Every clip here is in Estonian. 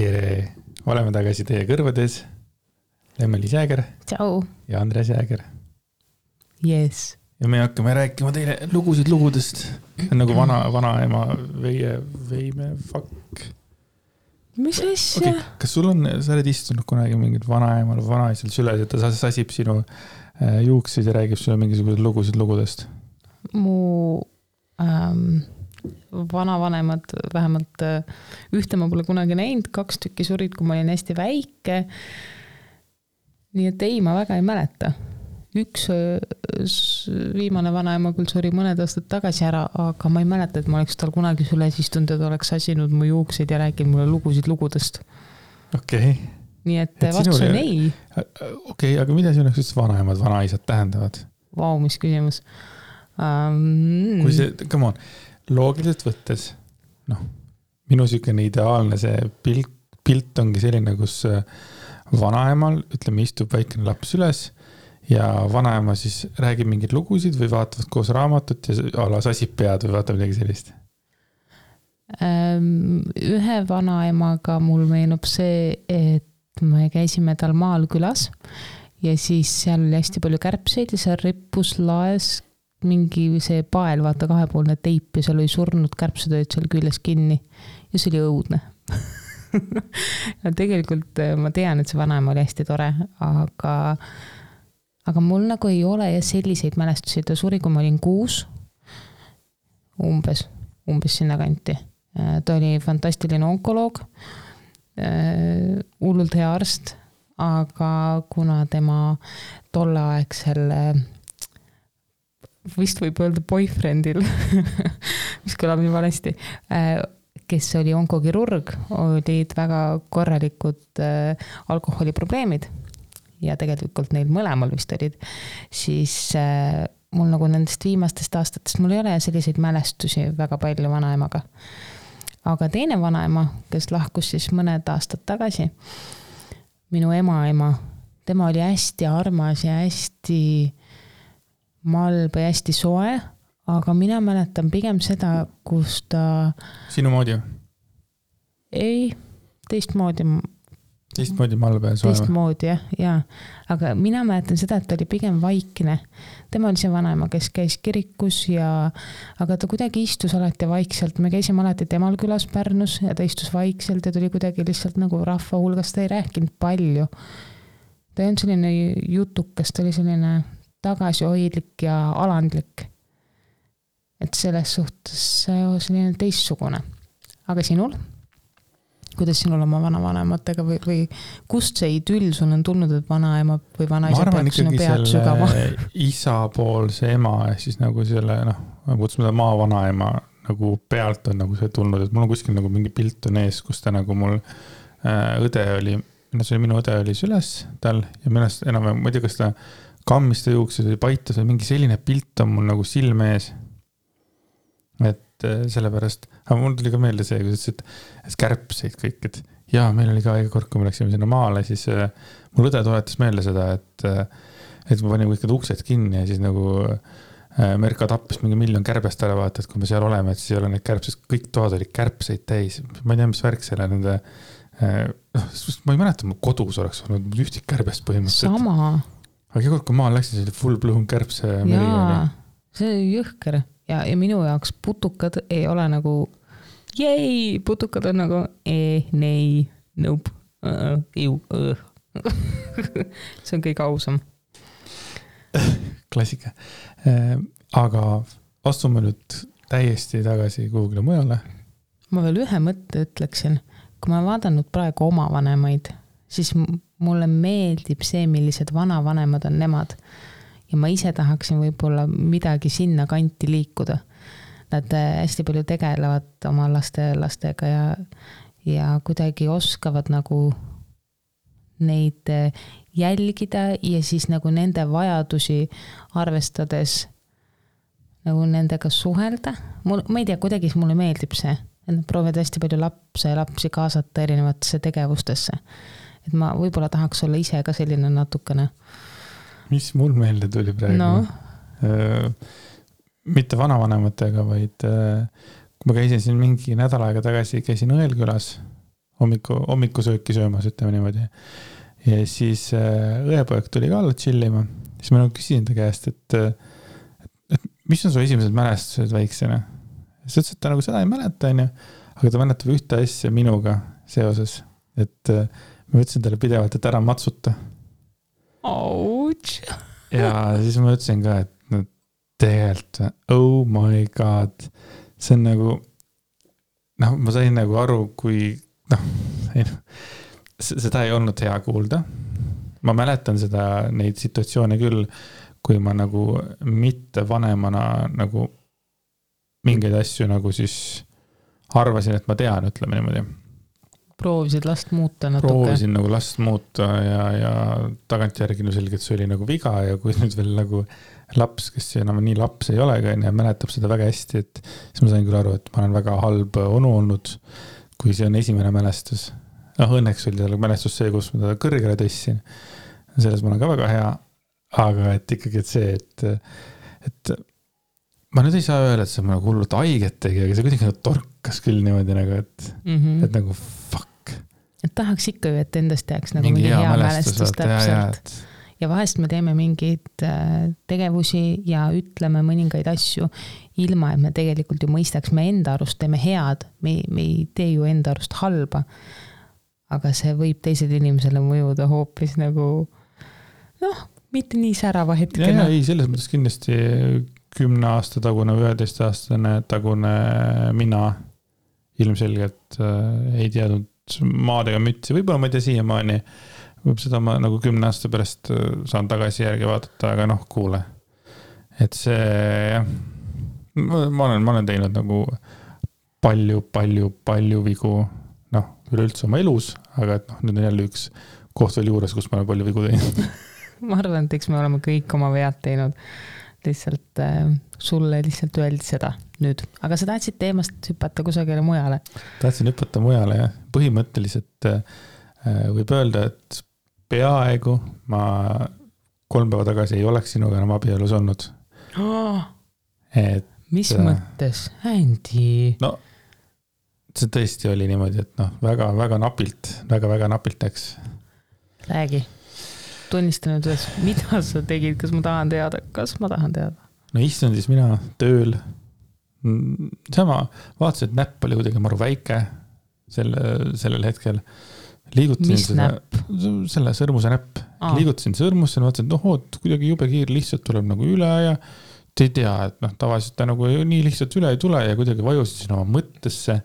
tere! Oleme tagasi teie kõrvades. Lemmelis Jääger. Tšau. Ja Andres Jääger. Yes. Ja me hakkame rääkima teile lugusid lugudest. Nagu vanaema veime fuck. Mis asja? Okay. Kas sul on, sa oled istunud kunagi mingid vanaemal või vanaisal süles, et ta sasib sinu juuksid ja räägib sulle mingisugused lugusid lugudest? Mu vanavanemad, vähemalt ühte ma pole kunagi näinud, 2 tükki surid, kui ma olin hästi väike. Nii et ei, ma väga ei mäleta. Üks viimane vanaema küll suri mõned aastad tagasi ära, aga ma ei mäleta, et ma oleks tal kunagi süles istunud, et oleks sasinud mu juukseid ja rääkinud mulle lugusid lugudest. Okei. Nii et vastus on ei. Okei, aga mida sinu jaoks vanaemad, vanaisad tähendavad? Vau, mis küsimus. Kui see, come on, loogiliselt võttes, minu sükene ideaalne see pilt ongi selline, kus vanaemal, ütleme, istub väikene laps üles ja vanaema siis räägib mingid lugusid või vaatavad koos raamatut ja ala sasib pead või vaatab midagi sellist? Ühe vanaemaga mul meenub see, et me käisime tal maal külas ja siis seal oli hästi palju kärbseid ja seal rippus laes mingi see pael, vaata 2-poolne teip ja seal oli surnud kärbsetööd seal küljes kinni ja see oli õudne. Ja tegelikult ma tean, et see vanaema oli hästi tore, aga mul nagu ei ole selliseid mälestusi. Ta suri, kui ma olin 6, umbes sinna kanti. Ta oli fantastiline onkoloog, hullult hea arst, aga kuna tema tolleaegsel vist võib öelda boyfriendil, mis kõlab nii valesti, kes oli onkokirurg, olid väga korralikud alkoholiprobleemid ja tegelikult neil mõlemal vist olid, siis mul nagu nendest viimastest aastatest mul ei ole selliseid mälestusi väga palju vanaemaga. Aga teine vanaema, kes lahkus siis mõned aastad tagasi, minu ema, tema oli hästi armas ja hästi malb ja hästi soe, aga mina mäletan pigem seda, kus ta... Sinu moodi? Ei, teistmoodi malb ja soe? Teistmoodi, jah. Aga mina mäletan seda, et ta oli pigem vaikne. Tema oli see vanaema, kes käis kirikus aga ta kuidagi istus alati vaikselt. Me käisime alati temal külas Pärnus ja ta istus vaikselt ja tuli kuidagi lihtsalt nagu rahva hulgas. Ta ei rääkinud palju. Ta on selline jutukas, ta oli selline tagasihoidlik ja alandlik. Et selles suhtes selline teistsugune. Aga sinul? Kuidas sinul oma vanavanematega või kust see idüll sul on tulnud, et vanaema või vanaisa peaks sinu pead sügama? Ma arvan ikkagi selle isapoolse ema, siis nagu selle, kutsume ta maavanaema nagu pealt on nagu see tulnud, et mul on kuskil nagu mingi pilt on ees, kus ta nagu mul õde oli, minu õde oli süles tal ja millest enam, ma ei tea, kas ta kammiste juuksed või paitas või mingi selline pilt on mul nagu silme ees. Et sellepärast, aga mul tuli ka meelde see, kui sa ütlesid, et kärbseid kõik, et jaa, meil oli ka iga kord, kui me läksime sinna maale, siis mul õde toetas meelde seda, et ma panin kõik uksed kinni ja siis nagu Merka tappis mingi 1 miljon kärbest ära vaata, et kui me seal oleme, et siis ei ole neid kärbseid, kõik toad oli kärbseid täis. Ma ei tea, mis värk selle nende, ma ei mäleta, mu kodus oleks olnud ühtik kärbest põhimõtteliselt. Sama. Aga iga kord, kui maal läksin, see oli full blown kärbse meri. Jaa, see oli jõhker. Ja minu jaoks putukad ei ole nagu putukad on nagu nei, nope, see on kõik ausam. Klassika. Aga astume nüüd täiesti tagasi kuhugile mujale. Ma veel ühe mõtte ütleksin. Kui ma vaadanud praegu oma vanemaid, siis mulle meeldib see, millised vanavanemad on nemad. Ja ma ise tahaksin võib-olla midagi sinna kanti liikuda. Nad hästi palju tegelevad oma lastega ja kuidagi oskavad nagu neid jälgida ja siis nagu nende vajadusi arvestades nagu nendega suhelda. Ma ei tea, kuidagi mulle meeldib see. Nad proovivad hästi palju lapsi kaasata erinevatesse tegevustesse. Et ma võib-olla tahaks olla ise ka selline natukene. Mis mul meelde tuli praegu? Mitte vanavanematega, vaid kui ma käisin siin mingi nädal aega tagasi, käisin Õelkülas hommikusööki söömas, ütleme niimoodi. Ja siis õepoeg tuli ka alla chillima. Siis ma nagu küsisin ta käest, et mis on su esimesed mälestused väiksena? Siis ütles, et ta nagu seda ei mäleta, aga ta mäletab ühte asja minuga seoses, et ma ütlesin talle pidevalt, et ära matsuta. Ouch! Ja siis ma ütlesin ka, et no, tegelikult, oh my god, see on nagu, ma sain nagu aru, kui, seda ei olnud hea kuulda. Ma mäletan neid situatsioone küll, kui ma nagu mitte vanemana nagu mingeid asju nagu siis arvasin, et ma tean, ütleme niimoodi. Proovisid last muuta natuke. Proovisin nagu last muuta ja tagantjärgi selgelt see oli nagu viga ja kui nüüd veel nagu laps, kes enam nii laps ei ole ja mäletab seda väga hästi, et siis ma sain küll aru, et ma olen väga halb onu olnud, kui see on esimene mälestus. Õnneks oli tal mälestus see, kus ma teda kõrgele tõssin. Selles ma olen ka väga hea, aga et ikkagi et see, et ma nüüd ei saa öelda, et see on nagu hullult haiget tegi, aga see kuidagi nagu torkas küll niimoodi nagu, et nagu fuck. Et tahaks ikka ju, et endast jääks nagu mingi hea mälestus täpselt. Ja vahest me teeme mingeid tegevusi ja ütleme mõningaid asju ilma, et me tegelikult ju mõistaks, me enda arust teeme head, me ei tee ju enda arust halba, aga see võib teised inimesele mõjuda hoopis nagu mitte nii särava hetkena. Ei, selles mõttes kindlasti 10 aasta tagune, 11 aastane tagune mina ilmselgelt ei teadnud maadega mütsi. Võib-olla ma ei tea siiamaani, võib seda ma nagu 10 aasta pärast saan tagasi järgi vaadata, aga kuule. Et see, ma olen teinud nagu palju vigu, üleüldse oma elus, aga et nüüd on jälle üks koht veel juures, kus ma olen palju vigu teinud. Ma arvan, et eks me oleme kõik oma vead teinud. Lihtsalt sulle lihtsalt öeldi seda nüüd. Aga sa tahtsid teemast hüpata kusagile mujale? Tahtsin hüpata mujale, jah. Põhimõtteliselt võib öelda, et peaaegu ma 3 päeva tagasi ei oleks sinuga enam abielus olnud. Mis mõttes? Andy? No, see tõesti oli niimoodi, et väga napilt läks. Räägi. Tunnistan nüüd, mida sa tegid, kas ma tahan teada? No istun siis mina tööl. Sama, vaatasin, et näpp oli kuidagi maru väike sellel hetkel. Mis näpp? Selle sõrmuse näpp. Liigutasin sõrmusse, vaatasin, et kuidagi jube kiir lihtsalt tuleb nagu üle ja te ei tea, et tavaliselt ta nagu nii lihtsalt üle ei tule ja kuidagi vajusin oma mõttesse.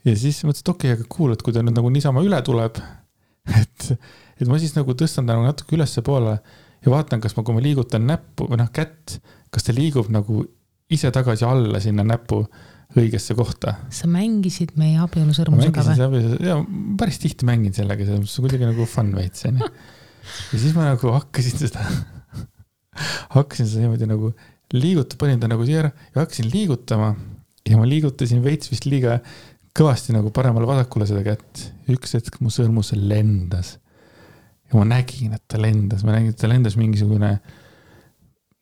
Ja siis mõtlesin, et okei, aga kuul, et kui ta nüüd nagu niisama üle tuleb, et ma siis nagu tõstan ta nagu natuke ülesse poole ja vaatan, kas kui ma liigutan näppu või kätt, kas ta liigub nagu ise tagasi alla sinna näppu õigesse kohta. Sa mängisid meie abielu sõrmusega või? Ja päris tihti mängin sellega, see on kuidagi nagu fun veits. Ja siis ma nagu hakkasin seda niimoodi nagu liiguta, panin ta nagu siia ja hakkasin liigutama ja ma liigutasin veits vist liiga kõvasti nagu paremale vasakule seda kätt. Üks hetk mu sõrmus lendas. Ja ma nägin, et ta lendas. Ma nägin, et ta lendas mingisugune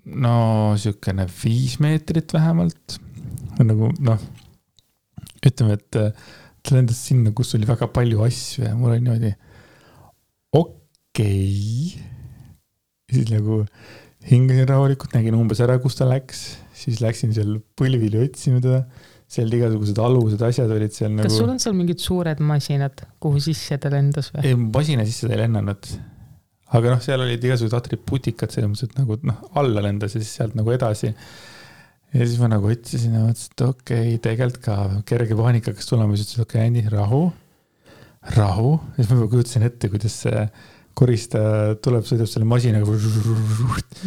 siukene 5 meetrit vähemalt. Nagu, ütleme, et ta lendas sinna, kus oli väga palju asju ja mul oli niimoodi okei. Siis nagu hingasin rahulikult, nägin umbes ära, kus ta läks. Siis läksin seal põlvili otsima teda. Seal igasugused alused asjad olid seal nagu... Kas sul on seal mingid suured masinad, kuhu sisse ta lendas või? Ei, masina sisse ta ei lennanud. Aga seal olid igasugused atribuutikad selles mõttes, et nagu alla lendas ja siis sealt nagu edasi. Ja siis ma nagu otsisin ja mõtlesin, et okei, tegelikult ka kerge paanika, kas tulema, siis ütlesin, okei, Andy, rahu. Ja siis ma kujutasin ette, kuidas see korista tuleb, sõidab selle masinaga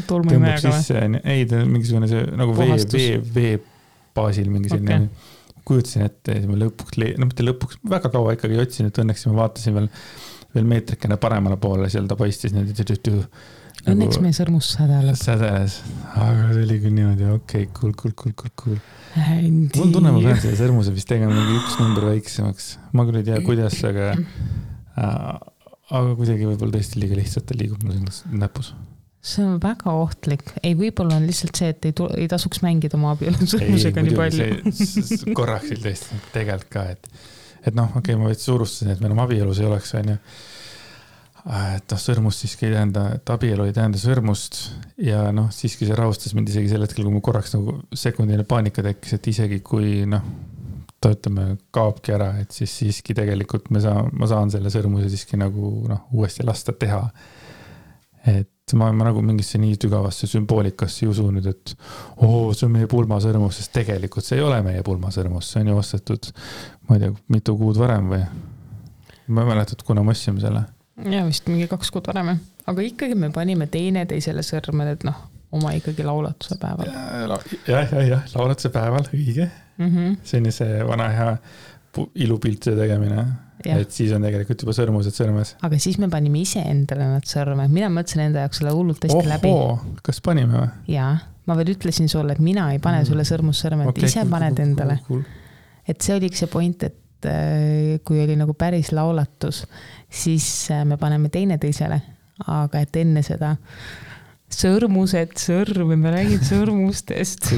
tõmbab sisse. Ei, ta on mingisugune see nagu vee baasil mingi selline kujutasin ette ja mitte lõpuks, väga kaua ikkagi otsin, et õnneks ma vaatasin veel meetrikene paremale poole, seal ta paistis õnneks meie sõrmus sädeles, aga see oli küll niimoodi, okei, cool. Mul tunne, ma pean selle sõrmuse vist tegema mingi 1 number väiksemaks, ma küll ei tea, kuidas, aga kuidagi võib-olla tõesti liiga lihtsalt ta liigub mul näpus. See on väga ohtlik. Ei, võib-olla on lihtsalt see, et ei tasuks mängida oma abielu sõrmusega nii palju. Korraks tõesti tegelikult ka, et noh, okei, ma veits suurustasin, et meil on abielus ei oleks, on ju. Et noh, sõrmust siiski ei tähenda, et abielu ei tähenda sõrmust ja noh, siiski see rahustas mind isegi sel hetkel, kui mul korraks nagu sekundine paanika tekkis, et isegi kui noh, ta ütleme, kaobki ära, et siis siiski tegelikult ma saan selle sõrmuse siiski nagu noh, uuesti lasta teha. Et ma nagu mingisse nii tügavasse sümboolikasse ei usu nüüd, et see on meie pulmasõrmus, sest tegelikult see ei ole meie pulmasõrmus, see on ju ostetud, ma ei tea, mitu kuud varem või ma ei mäletad, kuna me ostsime selle. Ja vist mingi 2 kuud varem, aga ikkagi me panime teisele sõrmed, et noh, oma ikkagi laulatuse päeval. Jah, laulatuse päeval, õige. See on see vana hea ilupiltide tegemine, et siis on tegelikult juba sõrmused sõrmes. Aga siis me panime ise endale nad sõrmed, mina mõtlesin enda jaoks selle hullult hästi läbi. Kas panime või? Jaa, ma veel ütlesin sulle, et mina ei pane sulle sõrmussõrmed, okay, ise paned endale. Et see oligi see point, et kui oli nagu päris laulatus, siis me paneme teisele, aga et enne seda sõrmused, sõrm, me räägid sõrmustest.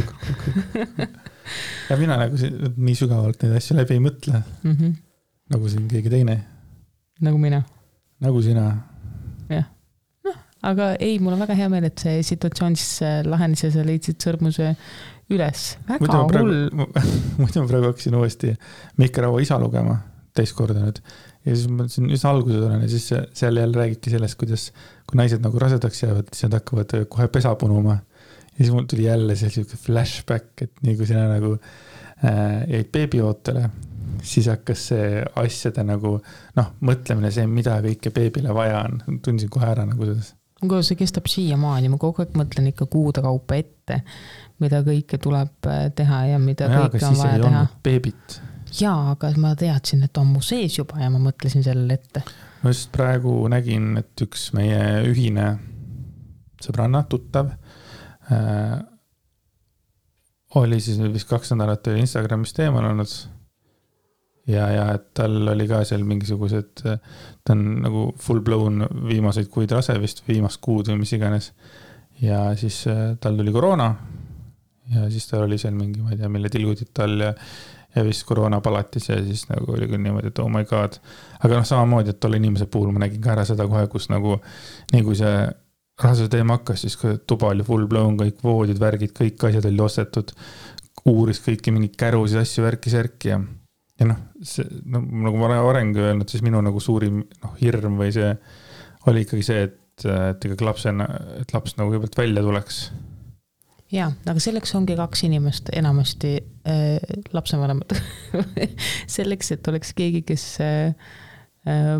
Ja mina nagu nii sügavalt neid asju läbi ei mõtle. Nagu siin keegi teine. Nagu mina. Nagu sina. Jah. No, aga ei, mul on väga hea meel, et see situatsioon siis lahenes ja sa leidsid sõrmuse üles. Väga hull. Muidu ma praegu hakkasin uuesti Mihkel Raua isa lugema teist korda nüüd. Ja siis ma siin üsna alguses olen ja siis seal jälle räägibki sellest, kuidas kui naised nagu rasedaks jäävad, siis nad hakkavad kohe pesa punuma. Ja siis mul tuli jälle selline flashback, et nii kui sina nagu jäid beebiootele, siis hakkas see asjade nagu mõtlemine see, mida kõike beebile vaja on. Tundsin kohe ära nagu selles. Kui see kestab siiamaani, ma kogu aeg mõtlen ikka kuude kaupa ette, mida kõike tuleb teha ja mida kõike on vaja teha. Beebit. Jaa, aga ma teadsin, et on mu sees juba ja ma mõtlesin sellele ette. Ma just praegu nägin, et üks meie ühine sõbranna, tuttav, oli siis vist 2 nädalat Instagramis teemal olnud ja et tal oli ka seal mingisugused, ta on nagu full blown viimaseid kuid rase vist, viimast kuud või mis iganes ja siis tal tuli koroona ja siis tal oli seal mingi, ma ei tea, mille tilgudid tal ja vist koroona palatis ja siis nagu oli küll niimoodi, et oh my god. Aga samamoodi, et tolle inimese puhul ma nägin ka ära seda kohe, kus nagu nii kui see rahasuse teema hakkas, siis tuba oli full blown, kõik voodid, värgid, kõik asjad oli ostetud, uuris kõiki mingi kärusid, asju, värki ja nagu ma olen varengi öelnud, siis minu nagu suurim hirm või see oli ikkagi see, et laps nagu kõigepealt välja tuleks. Jaa, aga selleks ongi 2 inimest enamasti lapsevanemad. Selleks, et oleks keegi, kes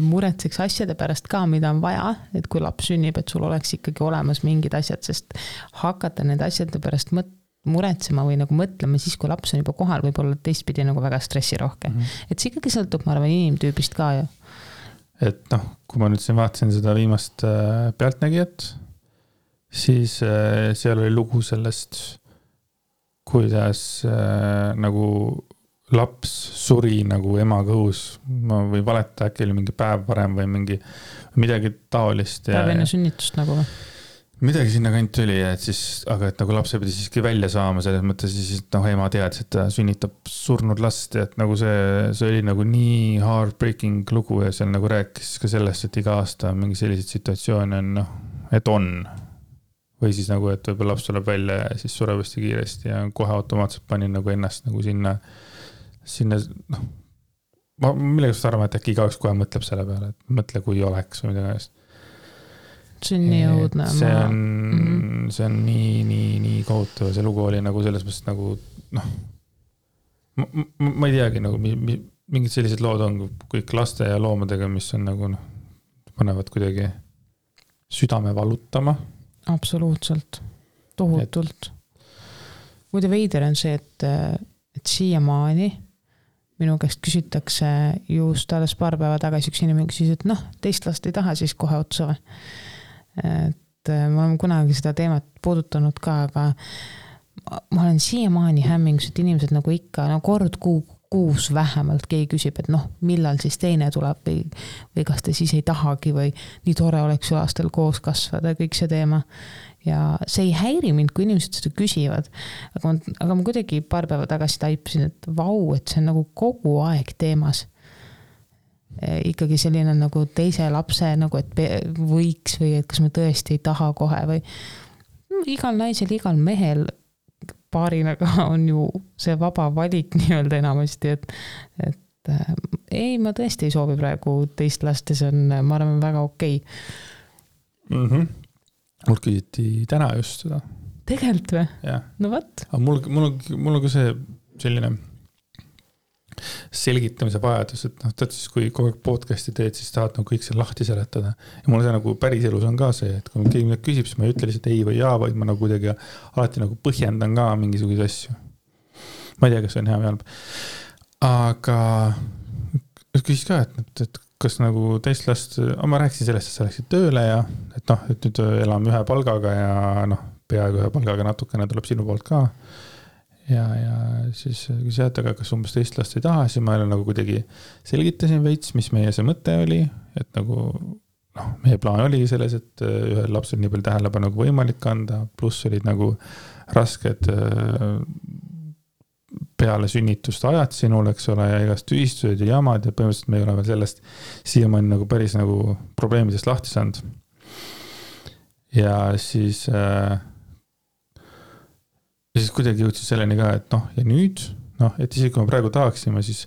muretseks asjade pärast ka, mida on vaja, et kui laps sünnib, et sul oleks ikkagi olemas mingid asjad, sest hakata need asjade pärast muretsema või nagu mõtlema siis, kui laps on juba kohal, võib olla teistpidi nagu väga stressirohke. Et see ikkagi sõltub, ma arvan, inimtüübist ka ju. Et kui ma nüüd siin vaatasin seda viimast pealtnägijat, siis seal oli lugu sellest, kuidas nagu laps suri nagu ema kõhus või valeta äkki oli mingi päev varem või midagi taolist. Päev enne sünnitust nagu või? Midagi sinna kant tuli, aga et nagu lapse pidi siiski välja saama selles mõttes, siis ema teadis, et ta sünnitab surnud last ja et nagu see oli nagu nii heartbreaking lugu ja seal nagu rääkis ka sellest, et iga aasta mingi selliseid situatsioone on, et on. Või siis nagu, et võib-olla laps tuleb välja ja siis sureb hästi kiiresti ja kohe automaatselt panin nagu ennast nagu sinna ma millegast arvan, et äkki igaüks kohe mõtleb selle peale, et mõtle, kui oleks või midagi eest. See on nii õudne. See on nii kohutav. See lugu oli nagu selles mõttes nagu, ma ei teagi, nagu mingid sellised lood on kõik laste ja loomadega, mis on nagu, panevad kuidagi südame valutama. Absoluutselt. Tohutult. Muide veider on see, et siiamaani minu käest küsitakse just alles paar päeva tagasi üks inimene küsis, et teist last ei taha siis kohe otsa või. Et ma olen kunagi seda teemat puudutanud ka, aga ma olen siiamaani hämmingus, et inimesed nagu ikka kord kuus vähemalt keegi küsib, et millal siis teine tuleb või kas te siis ei tahagi või nii tore oleks ju lastel koos kasvada, kõik see teema. Ja see ei häiri mind, kui inimesed seda küsivad, aga ma kuidagi paar päeva tagasi taipasin, et vau, et see on nagu kogu aeg teemas. ikkagi selline nagu teise lapse nagu, et võiks või et kas me tõesti ei taha kohe või igal naisel, igal mehel paarina ka on ju see vaba valik nii-öelda enamasti, et ei, ma tõesti ei soovi praegu teist last ja see on, ma arvan, väga okei. Mul küsiti täna just seda. Tegelikult või? Jah. No võt. Mul on ka see selline selgitamise vajadus, et tead siis, kui kogu aeg podcasti teed, siis tahad nagu kõik see lahti seletada. Ja mul see nagu päris elus on ka see, et kui keegi midagi küsib, siis ma ei ütle lihtsalt ei või jaa, vaid ma nagu kuidagi alati nagu põhjendan ka mingisuguse asju. Ma ei tea, kas see on hea või halb. Aga küsis ka, et kas nagu teist last, ma rääkisin sellest, et sa läksid tööle ja et nüüd elame ühe palgaga ja peaaegu ühe palgaga natukene tuleb sinu poolt ka. Ja siis küsisid, aga kas umbes teist last ei taha, siis ma nagu kuidagi selgitasin veits, mis meie see mõte oli, et nagu meie plaan oli selles, et ühel lapsel nii palju tähelepanu nagu võimalik anda, pluss olid nagu rasked peale sünnitust ajad sinul, eks ole, ja igast tühistused ja jamad ja põhimõtteliselt me ei ole veel sellest siiamaani nagu päris nagu probleemidest lahti saanud. Ja siis kuidagi jõudsin selleni ka, et ja nüüd, et isegi kui me praegu tahaksime, siis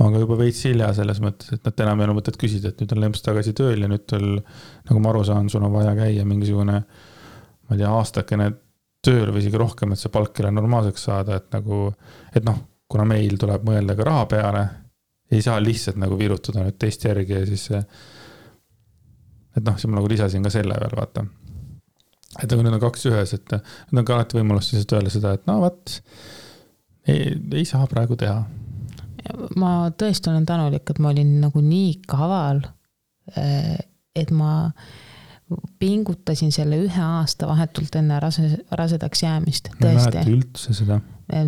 on ka juba veits hilja selles mõttes, et nad enam ei ole mõtet küsida, et nüüd on Lemps tagasi tööl ja nüüd nagu ma aru saan, sul on vaja käia mingisugune, ma ei tea, aastakene tööl või isegi rohkem, et see palk jälle normaalseks saada, et kuna meil tuleb mõelda ka raha peale, ei saa lihtsalt nagu virutada nüüd teist järgi ja siis siis ma nagu lisasin ka selle veel, vaata. Et nüüd on 2 ühes, et nüüd on ka alati võimalust siis öelda seda, et ei saa praegu teha. Ma tõesti olen tänulik, et ma olin nagu nii kaval, et ma pingutasin selle 1 aasta vahetult enne rasedaks jäämist. Ma ei mäleta üldse seda.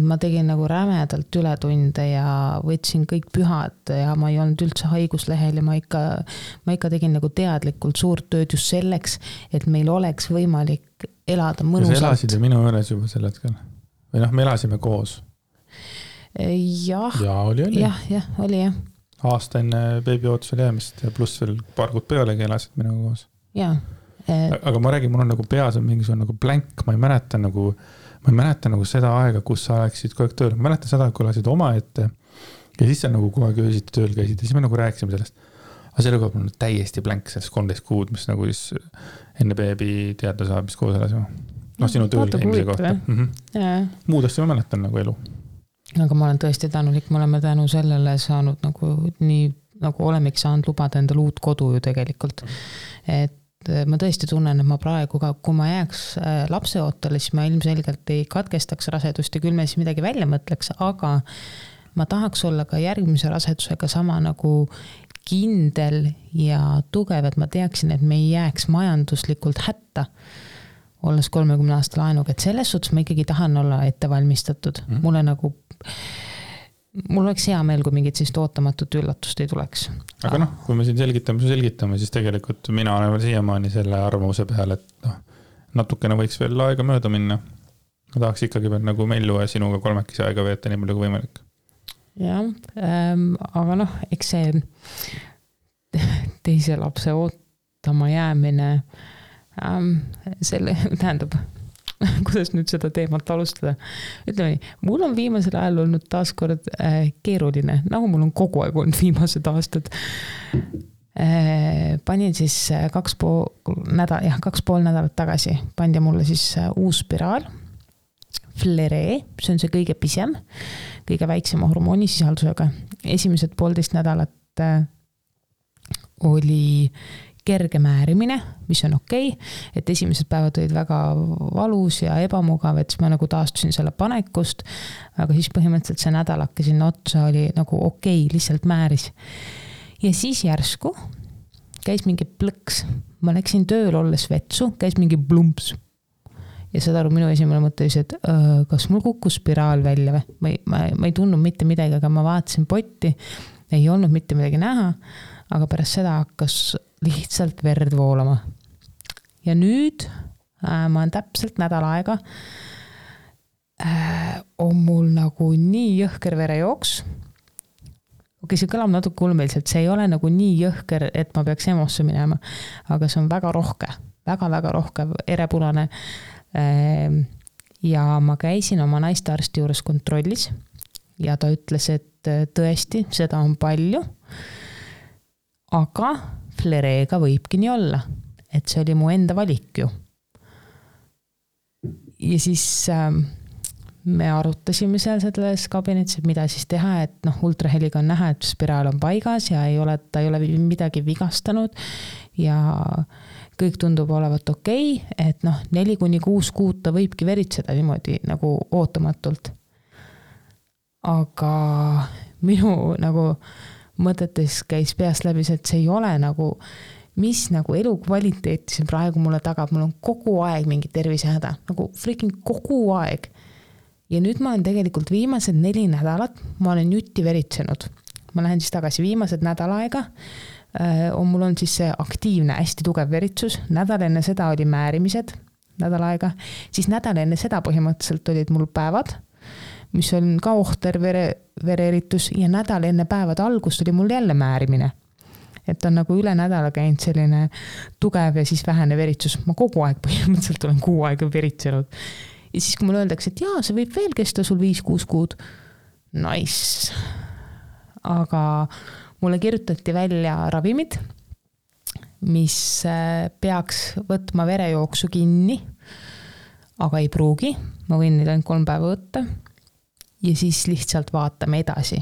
Ma tegin nagu rämedalt ületunde ja võtsin kõik pühad ja ma ei olnud üldse haiguslehel ja ma ikka tegin nagu teadlikult suurt tööd just selleks, et meil oleks võimalik elada mõnusalt. Ja sa elasid ju minu üles juba sel hetkel? Või me elasime koos? Jah. Ja oli. Jah, oli jah. Aasta enne beebi ootusel jäämist ja pluss veel paar kuud pealegi elasid minuga koos. Jah. Aga ma räägin, mul on nagu peas on mingisugune nagu blank, ma ei mäleta nagu seda aega, kus sa oleksid kogu aeg tööl. Ma mäletan seda, kui olasid oma ette ja siis sa nagu kogu aeg öösiti tööl käisid ja siis me nagu rääkisime sellest. Aga selle kogu aeg on täiesti blank sellest 13 kuud, mis nagu siis enne beebi teada saab, mis koos elasime. Sinu tööl käimise kohta. Muud asja ma mäletan nagu elu. Aga ma olen tõesti tänulik, me oleme tänu sellele saanud nagu nii, nagu olemegi saanud lubada endale uut kodu ju tegelikult. Et ma tõesti tunnen, et ma praegu ka, kui ma jääks lapse ootele, siis ma ilmselgelt ei katkestaks rasedust ja küll me siis midagi välja mõtleks, aga ma tahaks olla ka järgmise rasedusega sama nagu kindel ja tugev, et ma teaksin, et me ei jääks majanduslikult hätta, olles 30 aasta laenuga, et selles suhtes ma ikkagi tahan olla ettevalmistatud. Mul oleks hea meel, kui mingit siis ootamatut üllatust ei tuleks. Aga kui me siin selgitame, siis tegelikult mina olen veel siiamaani selle arvamuse peal, et natukene võiks veel aega mööda minna. Ma tahaks ikkagi veel nagu Mellu ja sinuga 3 aega veeta nii palju kui võimalik. Jah, aga eks see teise lapse ootama jäämine selle tähendab kuidas nüüd seda teemat alustada. Ütleme nii, mul on viimasel ajal olnud taaskord keeruline, nagu mul on kogu aeg olnud viimased aastad. Panin siis 2,5 nädalat tagasi, pandi mulle siis uus spiraal, Fleree, see on see kõige pisem, kõige väiksema hormoonisisaldusega. Esimesed 1,5 nädalat oli kerge määrimine, mis on okei, et esimesed päevad olid väga valus ja ebamugav, et siis ma nagu taastusin selle panekust, aga siis põhimõtteliselt see nädalake sinna otsa oli nagu okei, lihtsalt määris. Ja siis järsku käis mingi plõks, ma läksin tööl olles vetsu, käis mingi blumps. Ja seda aru minu esimene mõte oli, et kas mul kukkus spiraal välja või? Ma ei tundnud mitte midagi, aga ma vaatasin potti, ei olnud mitte midagi näha, aga pärast seda hakkas lihtsalt verd voolama. Ja nüüd ma olen täpselt nädal aega on mul nagu nii jõhker verejooks, okei, see kõlab natuke ulmeliselt, see ei ole nagu nii jõhker, et ma peaks EMO-sse minema, aga see on väga rohke, väga-väga rohke erepunane. Ja ma käisin oma naistearsti juures kontrollis ja ta ütles, et tõesti, seda on palju, aga flereega võibki nii olla, et see oli mu enda valik ju. Ja siis me arutasime seal selles kabinetis, et mida siis teha, et ultraheliga on näha, et spiraal on paigas ja ta ei ole midagi vigastanud ja kõik tundub olevat okei, et 4-6 kuud ta võibki veritseda niimoodi nagu ootamatult. Aga minu nagu mõtetes käis peast läbi, et see ei ole nagu, mis nagu elukvaliteeti see praegu mulle tagab, mul on kogu aeg mingi tervisehäda, nagu freaking kogu aeg. Ja nüüd ma olen tegelikult viimased 4 nädalat, ma olen jutti veritsenud. Ma lähen siis tagasi viimased nädal aega, mul on siis see aktiivne, hästi tugev veritsus, nädal enne seda oli määrimised, nädal aega, siis nädal enne seda põhimõtteliselt olid mul päevad, mis on ka ohter vereeritus ja nädal enne päevade algust oli mul jälle määrimine. Et on nagu üle nädala käinud selline tugev ja siis vähene veritsus. Ma kogu aeg põhimõtteliselt olen 6 aega veritsenud. Ja siis kui mulle öeldakse, et jaa, see võib veel kesta sul 5-6 kuud. Nice. Aga mulle kirjutati välja ravimid, mis peaks võtma verejooksu kinni, aga ei pruugi. Ma võin neid ainult 3 päeva võtta ja siis lihtsalt vaatame edasi.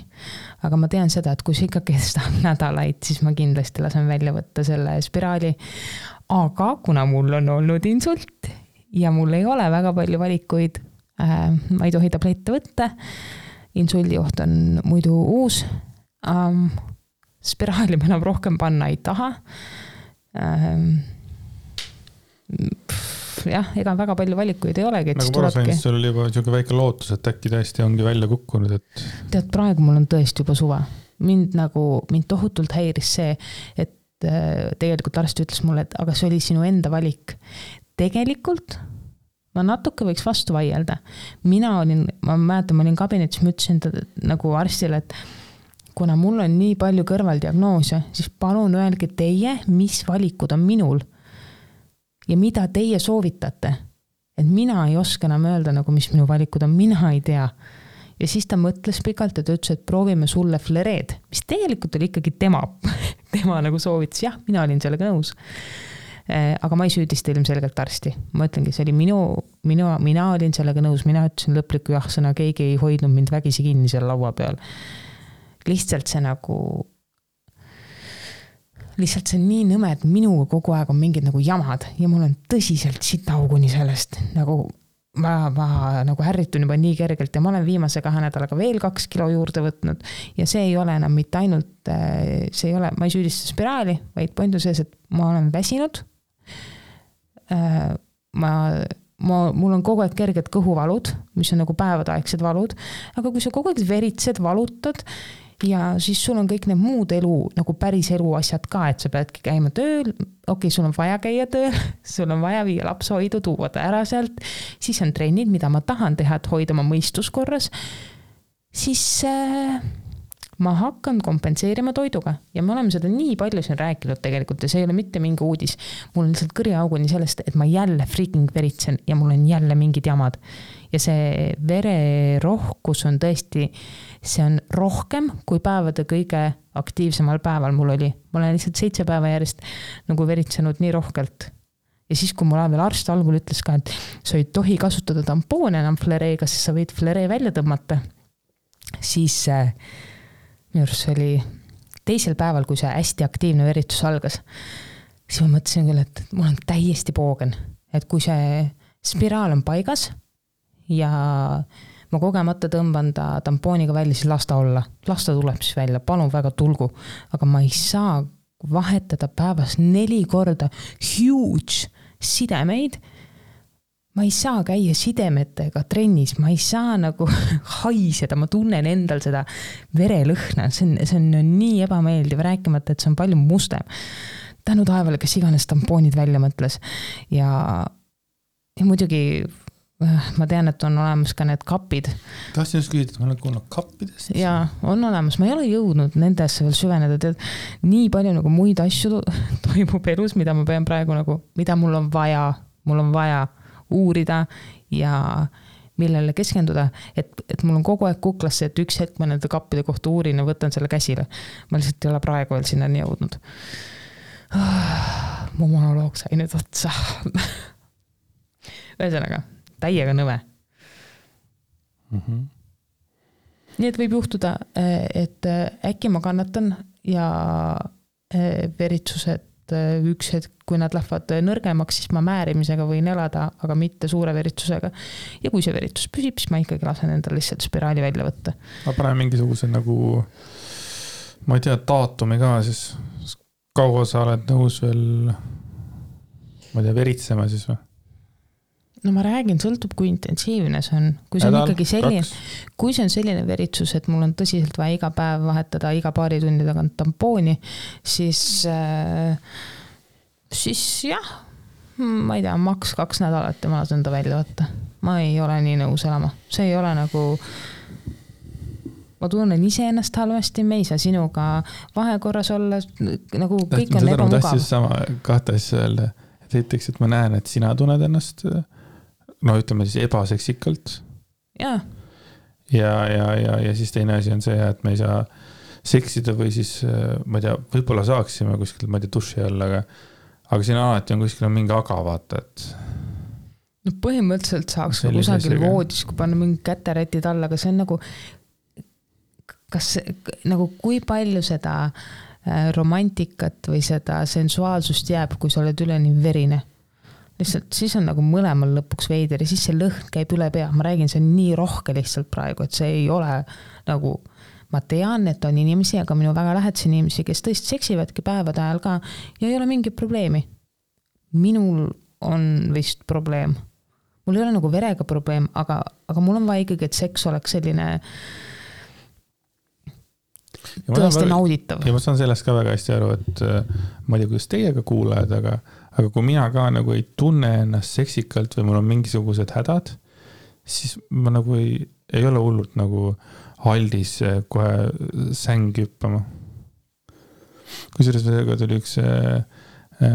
Aga ma tean seda, et kui see ikka kestab nädalaid, siis ma kindlasti lasen välja võtta selle spiraali. Aga kuna mul on olnud insult ja mul ei ole väga palju valikuid, ma ei tohi tablette võtta, insuldioht on muidu uus, spiraali ma enam rohkem panna ei taha. Jah, ega väga palju valikuid ei olegi. Nagu parasainist sul oli juba selline väike lootus, et äkki tõesti ongi välja kukkunud. Et... Tead, praegu mul on tõesti juba suve. Mind tohutult häiris see, et tegelikult arst ütles mulle, et aga see oli sinu enda valik. Tegelikult ma natuke võiks vastu vaielda. Ma mäletan, ma olin kabinetis, ma ütlesin nagu arstile, et kuna mul on nii palju kõrvaldiagnoose, siis palun öelge teie, mis valikud on minul ja mida teie soovitate. Et mina ei oska enam öelda, nagu mis minu valikud on, mina ei tea. Ja siis ta mõtles pikalt, et ütles, et proovime sulle flereed, mis tegelikult oli ikkagi tema nagu soovitas. Jah, mina olin sellega nõus. Aga ma ei süüdista ilmselgelt arsti. Ma ütlengi, see oli mina olin sellega nõus, mina ütlesin lõpliku jah-sõna, keegi ei hoidnud mind vägisi kinni seal laua peal. Lihtsalt see on nii nõme, et minuga kogu aeg on mingid nagu jamad ja mul on tõsiselt sitauguni sellest. Nagu ma nagu ärritun juba nii kergelt ja ma olen viimase 2 nädalaga veel 2 kilo juurde võtnud ja see ei ole enam mitte ainult, ma ei süüdista spiraali, vaid point on sees, et ma olen väsinud. Mul on kogu aeg kerged kõhuvalud, mis on nagu päevadaegsed valud, aga kui sa kogu aeg veritsed, valutad ja siis sul on kõik need muud elu, nagu päris elu asjad ka, et sa peadki käima tööl, okei, sul on vaja käia tööl, sul on vaja viia lapsehoidu, tuua ta ära sealt, siis on trennid, mida ma tahan teha, et hoida oma mõistuskorras, siis ma hakkan kompenseerima toiduga ja me oleme seda nii palju siin rääkinud tegelikult ja see ei ole mitte mingi uudis. Mul on lihtsalt kõriauguni sellest, et ma jälle freaking veritsen ja mul on jälle mingid jamad. Ja see vererohkus on tõesti, see on rohkem kui päevade kõige aktiivsemal päeval mul oli. Ma olen lihtsalt 7 päeva järjest nagu veritsenud nii rohkelt. Ja siis, kui mul veel arst algul ütles ka, et sa ei tohi kasutada tampoone enam flereega, siis sa võid fleree välja tõmmata, siis minu arust oli 2. päeval, kui see hästi aktiivne veritsus algas, siis ma mõtlesin küll, et mul on täiesti poogen, et kui see spiraal on paigas ja ma kogemata tõmban ta tampooniga välja, siis lasta olla. Lasta tuleb siis välja, palun väga tulgu. Aga ma ei saa vahetada päevas 4 korda huge sidemeid. Ma ei saa käia sidemetega trennis, ma ei saa nagu haiseda, ma tunnen endal seda verelõhna. See on nii ebameeldiv, rääkimata, et see on palju mustem. Tänu taevale, kes iganes tampoonid välja mõtles. Ja muidugi ma tean, et on olemas ka need kapid. Tahtsin just küsida, et ma olen kuulnud kappidest. Jaa, on olemas. Ma ei ole jõudnud nendesse veel süveneda. Tead, nii palju nagu muid asju toimub elus, mida ma pean praegu nagu, mida mul on vaja uurida ja millele keskenduda, et mul on kogu aeg kuklasse, et üks hetk ma nende kappide kohta uurin ja võtan selle käsile. Ma lihtsalt ei ole praegu veel sinna nii jõudnud. Mu monoloog sai nüüd otsa. Ühesõnaga, täiega nõve. Nii et võib juhtuda, et äkki ma kannatan ja veritsused üks hetk, kui nad lähevad nõrgemaks, siis ma määrimisega võin elada, aga mitte suure veritsusega. Ja kui see veritsus püsib, siis ma ikkagi lasen endal lihtsalt spiraali välja võtta. Ma panen mingisuguse nagu, ma ei tea, daatumi ka, siis kaua sa oled nõus veel, ma ei tea, veritsema siis või? No ma räägin, sõltub kui intensiivne see on. Kui see on ikkagi selline, kui see on selline veritsus, et mul on tõsiselt vaja iga päev vahetada iga paari tunni tagant tampooni, siis jah, ma ei tea, maks 2 nädalat ja ma lasen ta välja võtta. Ma ei ole nii nõus elama. See ei ole nagu, ma tunnen ise ennast halvasti, me ei saa sinuga vahekorras olla, nagu kõik on ebamugav. Ma tahtsin sama 2 asja öelda, et esiteks, et ma näen, et sina tunned ennast no ütleme siis ebaseksikalt. Ja siis teine asi on see, et me ei saa seksida või siis, ma ei tea, võib-olla saaksime kuskil, ma ei tea, duši all, aga siin alati on kuskil mingi aga vaata, et no põhimõtteliselt saaks kusagil voodis, kui panna mingi käterätid alla, aga see on nagu kas nagu kui palju seda romantikat või seda sensuaalsust jääb, kui sa oled üleni verine. Lihtsalt siis on nagu mõlemal lõpuks veider ja siis see lõhn käib üle pea. Ma räägin, see on nii rohke lihtsalt praegu, et see ei ole nagu, ma tean, et on inimesi, aga minu väga lähedasi inimesi, kes tõesti seksivadki päevade ajal ka ja ei ole mingit probleemi. Minul on vist probleem. Mul ei ole nagu verega probleem, aga mul on vaja ikkagi, et seks oleks selline tõesti nauditav. Ja ma saan sellest ka väga hästi aru, et ma ei tea, kuidas teiega kuulajad, aga kui mina ka nagu ei tunne ennast seksikalt või mul on mingisugused hädad, siis ma nagu ei ole hullult nagu aldis kohe sängi hüppama. Kusjuures tuli üks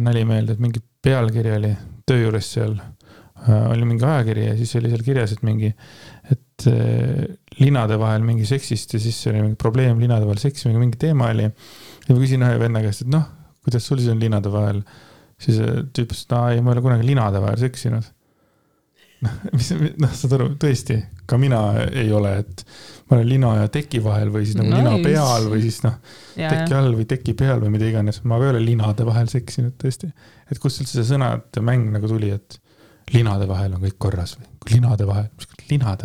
nali meelde, et mingi pealkiri oli töö juures seal, oli mingi ajakiri ja siis oli seal kirjas, et mingi, et linade vahel mingi seksist ja siis oli mingi probleem linade vahel seksi, mingi teema oli. Ja ma küsin ühe venna käest, et noh, kuidas sul siis on linade vahel? Siis tüüp, et ei, ma ei ole kunagi linade vahel seksinud. Saad aru, tõesti, ka mina ei ole, et ma olen lina ja teki vahel või siis nagu lina peal või siis teki all või teki peal või mida iganes. Ma ei ole linade vahel seksinud tõesti. Et kust üldse see sõnad mäng nagu tuli, et linade vahel on kõik korras või linade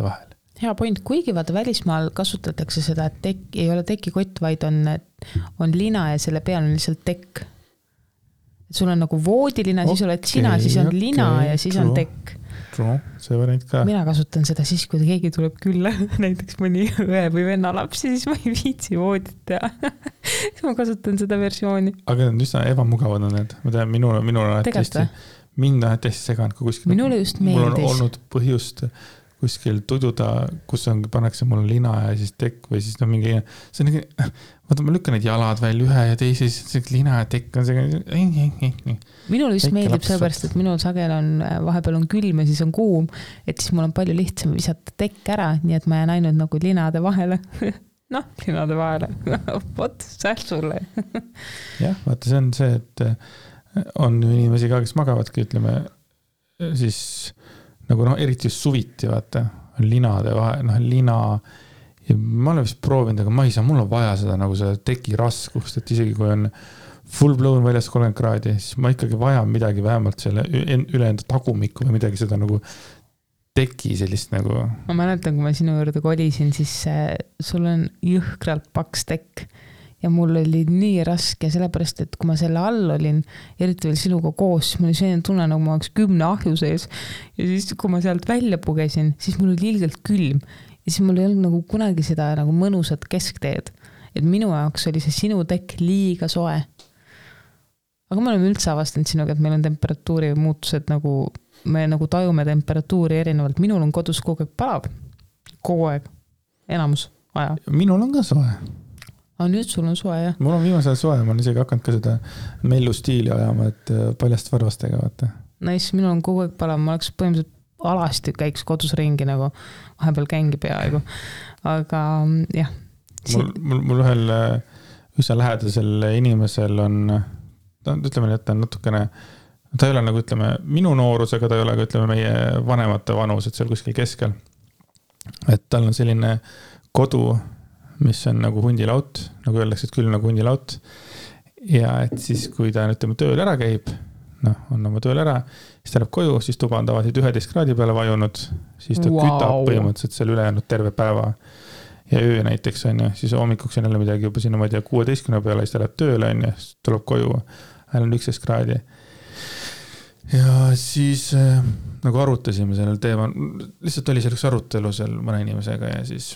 vahel. Hea point, kuigi vaata välismaal kasutatakse seda, et ei ole tekikott, vaid on lina ja selle peal on lihtsalt tekk. Et sul on nagu voodilina, siis oled sina, siis on lina ja siis on tekk. See variant ka. Mina kasutan seda siis, kui keegi tuleb külla, näiteks mõni õe või venna lapsi, siis ma ei viitsi voodit teha. Siis ma kasutan seda versiooni. Aga need üsna ebamugavad on need. Ma tean, minul on mind on hästi seganud, kui kuskil minule just meeldis. Mul on olnud põhjust kuskil tududa, kus pannakse mul lina ja siis tekk või siis mingi, see on vaata, ma lükkan need jalad välja ühe ja teise, siis lina ja tekk on see. Minul just meeldib sellepärast, et minul sagel on, vahepeal on külm ja siis on kuum, et siis mul on palju lihtsam visata tekk ära, nii et ma jään ainult nagu linade vahele. Linade vahele. Vot, säht sulle. Jah, vaata, see on see, et on inimesi ka, kes magavadki, ütleme, siis nagu eriti just suviti, vaata, linade vahel, lina, ja ma olen vist proovinud, aga ma ei saa, mul on vaja seda nagu seda teki raskust, et isegi kui on full blown väljas 30 kraadi, siis ma ikkagi vajan midagi vähemalt selle üle enda tagumikku või midagi seda nagu teki sellist nagu. Ma mäletan, kui ma sinu juurde kolisin, siis sul on jõhkralt paks tekk. Ja mul oli nii raske, sellepärast, et kui ma selle all olin, eriti veel sinuga koos, siis mul oli selline tunne, nagu ma oleks 10 ahju sees. Ja siis, kui ma sealt välja pugesin, siis mul oli ilgelt külm. Ja siis mul ei olnud nagu kunagi seda nagu mõnusat keskteed. Et minu jaoks oli see sinu tekk liiga soe. Aga me oleme üldse avastanud sinuga, et meil on temperatuuri muutused nagu me nagu tajume temperatuuri erinevalt. Minul on kodus kogu aeg palav. Kogu aeg. Enamus aja. Minul on ka soe. Aga nüüd sul on soe, jah? Mul on viimasel soe, ma olen isegi hakanud ka seda mellu stiili ajama, et paljast varvastega, vaata. Nice, minul on kogu aeg palav, ma oleks põhimõtteliselt alasti käiks kodus ringi nagu, vahepeal kängi peaaegu. Aga jah. Mul ühel üsna lähedasel inimesel on, ütleme, et ta on natukene, ta ei ole nagu, ütleme, minu noorusega, ta ei ole, ütleme, meie vanemate vanus, et seal kuskil keskel. Et tal on selline kodu, mis on nagu hundilaut, nagu öeldakse, et küll nagu hundilaut. Ja et siis, kui ta ütleme, tööl ära käib, on oma tööl ära, siis ta läheb koju, siis tuba on tavaliselt 11 kraadi peale vajunud, siis ta kütab põhimõtteliselt seal ülejäänud terve päeva. Ja öö näiteks on ja siis hommikuks on jälle midagi juba sinna, ma ei tea, 16 peale, siis ta läheb tööle on ja siis tuleb koju, on 11 kraadi. Ja siis nagu arutasime sellel teemal, lihtsalt oli selleks arutelu seal mõne inimesega ja siis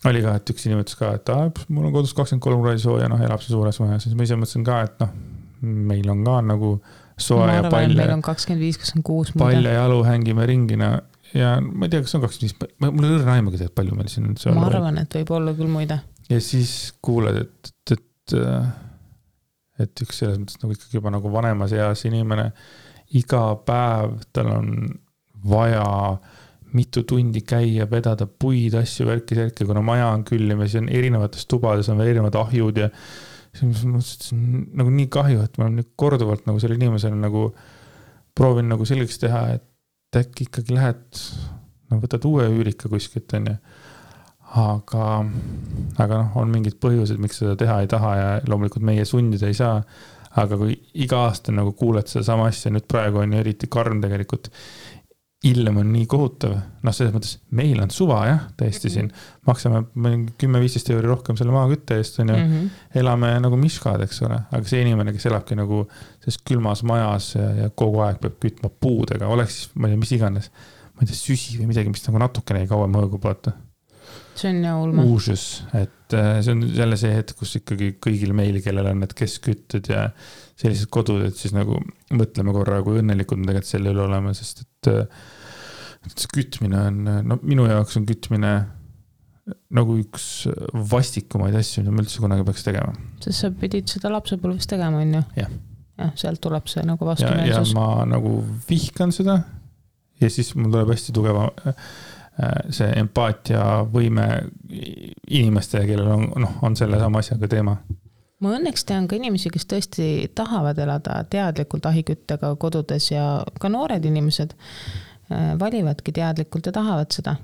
oli ka, et üks inimene ütles ka, et mul on kodus 23 kraadi sooja, elab see suures maja, siis ma ise mõtlesin ka, et meil on ka nagu soe ja palle. Meil on 25-26. Palle ja jalu hängime ringina ja ma ei tea, kas on 25, mul ei õrna aimagi tead, palju meil siin on. Ma arvan, et võib olla küll muide. Ja siis kuuled, et üks selles mõttes nagu ikkagi juba nagu vanemas eas inimene, iga päev tal on vaja mitu tundi käia, vedada puid, asju, värki, kuna maja on küllim ja siis on erinevates tubades on veel erinevad ahjud ja siis ma mõtlesin, nagu nii kahju, et ma olen nüüd korduvalt nagu selle inimesele nagu proovin nagu selgeks teha, et äkki ikkagi lähed, võtad uue üürika kuskilt, on ja. Aga on mingid põhjused, miks seda teha ei taha ja loomulikult meie sundida ei saa. Aga kui iga aasta nagu kuuled seda sama asja, nüüd praegu on ju eriti karm tegelikult, ilm on nii kohutav. Selles mõttes, meil on suva, jah, täiesti siin. Maksame 10-15 euri rohkem selle maakütte eest, on ju. Elame nagu miskad, eks ole. Aga see inimene, kes elabki nagu selles külmas majas ja kogu aeg peab kütma puudega, oleks siis, ma ei tea, mis iganes, ma ei tea, süsi või midagi, mis nagu natukene ei kauem õõgub, vaata. See on jah ulme. Uusus, et see on jälle see hetk, kus ikkagi kõigil meil, kellel on need keskütted ja sellised kodud, et siis nagu mõtleme korra, kui õnnelikud me tegelikult selle üle oleme, sest et see kütmine on, minu jaoks on kütmine nagu üks vastikumaid asju, mida ma üldse kunagi peaks tegema. Sest sa pidid seda lapsepõlves tegema, on ju? Jah. Ja, sealt tuleb see nagu vastumeelsus. Ja ma nagu vihkan seda ja siis mul tuleb hästi tugeva see empaatia võime inimestele, kellel on selle sama asjaga teema. Ma õnneks tean ka inimesi, kes tõesti tahavad elada teadlikult ahiküttega kodudes ja ka noored inimesed valivadki teadlikult ja tahavad seda.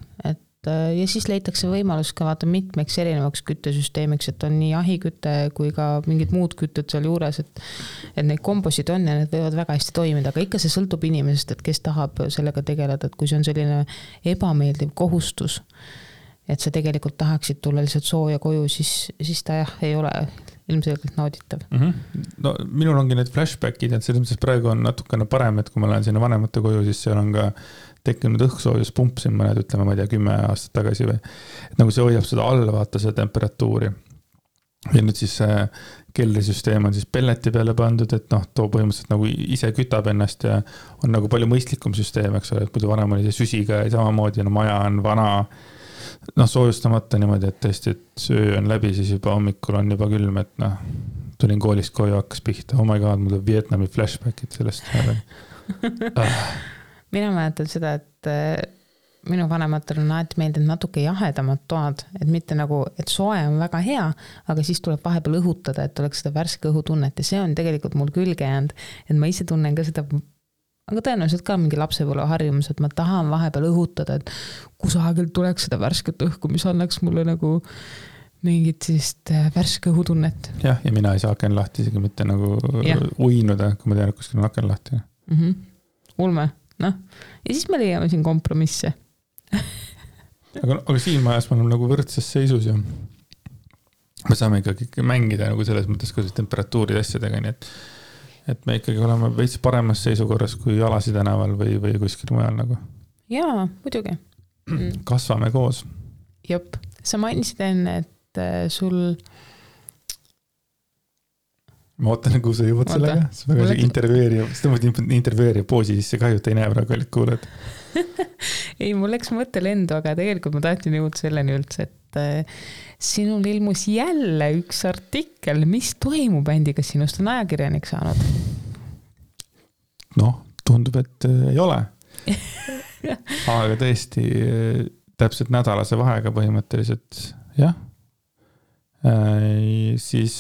Ja siis leitakse võimalus ka vaata mitmeks erinevaks küttesüsteemiks, et on nii ahikütte kui ka mingid muud kütted seal juures, et neid kombosid on ja need võivad väga hästi toimida, aga ikka see sõltub inimesest, et kes tahab sellega tegeleda, et kui see on selline ebameeldiv kohustus, et sa tegelikult tahaksid tulla lihtsalt sooja koju, siis ta jah, ei ole ilmselgelt nauditav. No minul ongi need flashbackid, et selles mõttes praegu on natukene parem, et kui ma lähen sinna vanemate koju, siis seal on ka tekkinud õhksoojuspump siin mõned, ütleme, ma ei tea, 10 aastat tagasi või. Et nagu see hoiab seda all, vaata seda temperatuuri. Ja nüüd siis keldrisüsteem on siis pelleti peale pandud, et too põhimõtteliselt nagu ise kütab ennast ja on nagu palju mõistlikum süsteem, eks ole, et muidu vanem oli see süsiga ja samamoodi, maja on vana, soojustamata niimoodi, et tõesti, et söö on läbi, siis juba hommikul on juba külm, et tulin koolist koju, hakkas pihta, oh my god, mul on Vietnami flashbackid sellest. Mina mäletan seda, et minu vanematel on alati meeldinud natuke jahedamad toad, et mitte nagu, et soe on väga hea, aga siis tuleb vahepeal õhutada, et oleks seda värske õhutunnet ja see on tegelikult mul külge jäänud, et ma ise tunnen ka seda, aga tõenäoliselt ka mingi lapsepõlve harjumus, et ma tahan vahepeal õhutada, et kusagil tuleks seda värsket õhku, mis annaks mulle nagu mingit sellist värske õhutunnet. Jah, ja mina ei saa aken lahti, isegi mitte nagu uinuda, kui ma tean, et kuskil on aken lahti. Ulme. Ja siis me leiame siin kompromisse. aga siin majas me oleme nagu võrdses seisus ja me saame ikkagi mängida nagu selles mõttes ka temperatuuri asjadega, nii et me ikkagi oleme veits paremas seisukorras kui Alasi tänaval või kuskil mujal nagu. Jaa, muidugi. Kasvame koos. Jop, sa mainisid enne, et sul ma ootan, kuhu sa jõuad sellega. See väga intervjueeriv poosi sisse kahju, et ei näe praegu olid kuuled. Ei, mul läks mõte lendu, aga tegelikult ma tahtsin jõuda selleni üldse, et sinul ilmus jälle üks artikkel, mis toimub bändiga, sinust on ajakirjanik saanud. Noh, tundub, et ei ole. Aga tõesti täpselt nädalase vahega põhimõtteliselt, jah. Siis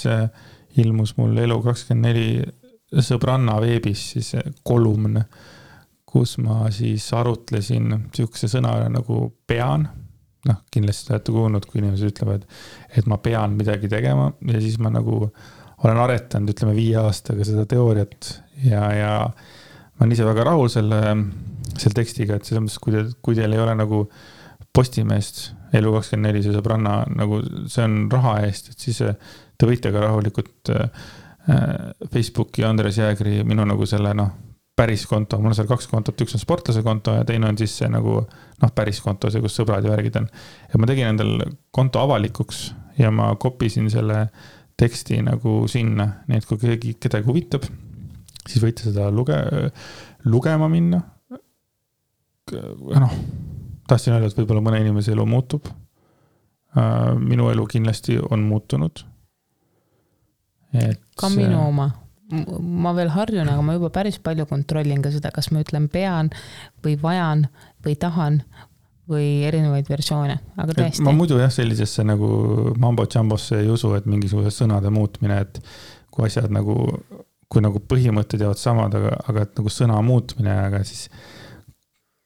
ilmus mul Elu24 sõbranna veebis siis kolumn, kus ma siis arutlesin sihukese sõna nagu pean. Noh, kindlasti olete kuulnud, kui inimesed ütlevad, et ma pean midagi tegema ja siis ma nagu olen aretanud, ütleme 5 aastaga seda teooriat ja ma olen ise väga rahul selle tekstiga, et selles mõttes, kui teil ei ole nagu Postimeest Elu24 see sõbranna, nagu see on raha eest, et siis te võite ka rahulikult Facebooki Andres Jäägri minu nagu selle päris konto, mul on seal 2 kontot, üks on sportlase konto ja teine on siis see nagu päris konto, see kus sõbrad ja värgid on. Ja ma tegin endal konto avalikuks ja ma kopisin selle teksti nagu sinna, nii et kui kedagi huvitab, siis võite seda lugema minna. Tahtsin öelda, et võib-olla mõne inimese elu muutub. Minu elu kindlasti on muutunud. Ka minu oma. Ma veel harjun, aga ma juba päris palju kontrollin ka seda, kas ma ütlen pean või vajan või tahan või erinevaid versioone, aga tõesti. Ma muidu jah sellisesse nagu mambo-jambosse ei usu, et mingisuguse sõnade muutmine, et kui asjad nagu, kui nagu põhimõtted jäävad samad, aga et nagu sõna muutmine, aga siis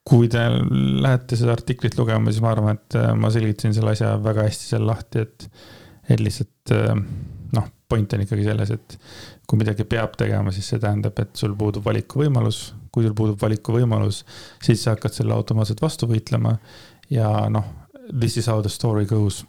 kui te lähete seda artiklit lugema, siis ma arvan, et ma selgitasin selle asja väga hästi seal lahti, et lihtsalt point on ikkagi selles, et kui midagi peab tegema, siis see tähendab, et sul puudub valikuvõimalus. Kui sul puudub valikuvõimalus, siis sa hakkad selle automaatselt vastu võitlema ja this is how the story goes.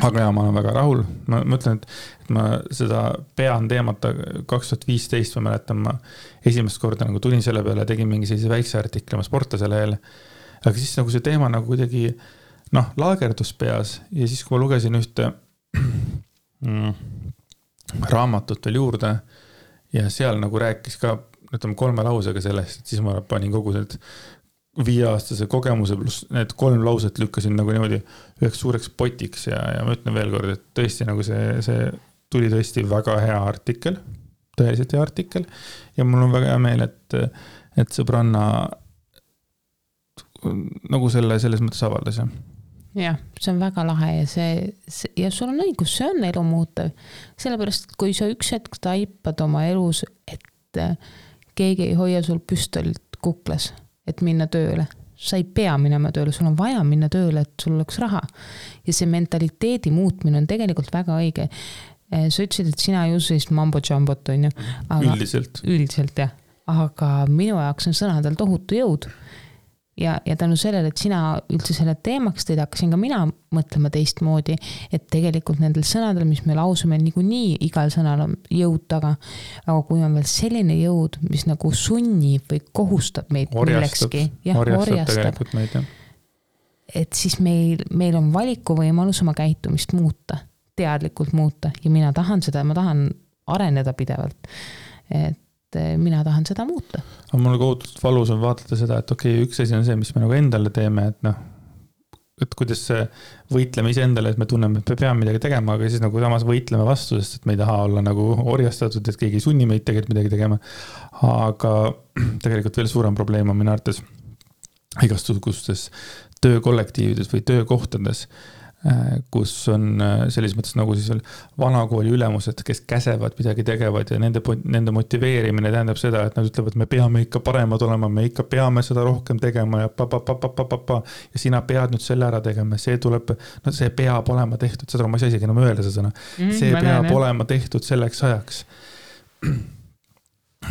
Aga ma olen väga rahul. Ma mõtlen, et ma seda pean teemata 2015, ma mäletan, ma esimest korda nagu tulin selle peale, tegin mingi sellise väikse artikli oma sportlasele jälle. Aga siis nagu see teema nagu kuidagi laagerdus peas ja siis, kui ma lugesin ühte raamatut veel juurde ja seal nagu rääkis ka 3 lausega sellest, et siis ma panin kogu need 5-aastase kogemuse pluss need 3 lauset lükkasin nagu niimoodi üheks suureks potiks ja ma ütlen veel kord, et tõesti nagu see tuli tõesti väga hea artikkel, tõeliselt hea artikkel ja mul on väga hea meel, et sõbranna nagu selles mõttes avaldas. Jah, see on väga lahe ja sul on õigus, see on elu muutev. Sellepärast, et kui sa üks hetk taipad oma elus, et keegi ei hoia sul püstolit kuklas, et minna tööle. Sa ei pea minema tööle, sul on vaja minna tööle, et sul oleks raha. Ja see mentaliteedi muutmine on tegelikult väga õige. Sa ütlesid, et sina ei usu sellist mambo-jambot, on ju? Üldiselt. Üldiselt, jah. Aga minu jaoks on sõnadel tohutu jõud. Ja tänu sellele, et sina üldse selle teemaks teid, hakkasin ka mina mõtlema teistmoodi, et tegelikult nendel sõnadel, mis me lausume, nii igal sõnal on jõud taga, aga kui on veel selline jõud, mis nagu sunnib või kohustab meid millekski, orjastab meid, et siis meil on valikuvõimalus oma käitumist muuta, teadlikult muuta ja mina tahan seda, ma tahan areneda pidevalt, et mina tahan seda muuta. Aga mul kohutust valus on vaatleda seda, et okei, üks asi on see, mis me nagu endale teeme, et kuidas võitleme ise endale, et me tunneme, et me peame midagi tegema, aga siis nagu samas võitleme vastu, sest et me ei taha olla nagu orjastatud, et keegi ei sunni meid tegelikult midagi tegema. Aga tegelikult veel suurem probleem on minu arvates igasugustes töökollektiivides või töökohtades, kus on selles mõttes nagu siis veel vanakooli ülemused, kes käsevad, midagi tegevad ja nende motiveerimine tähendab seda, et nad ütlevad, et me peame ikka paremad olema, me ikka peame seda rohkem tegema ja ja sina pead nüüd selle ära tegema, see tuleb, see peab olema tehtud, seda ma ei saa isegi enam öelda seda sõna, see peab olema tehtud selleks ajaks.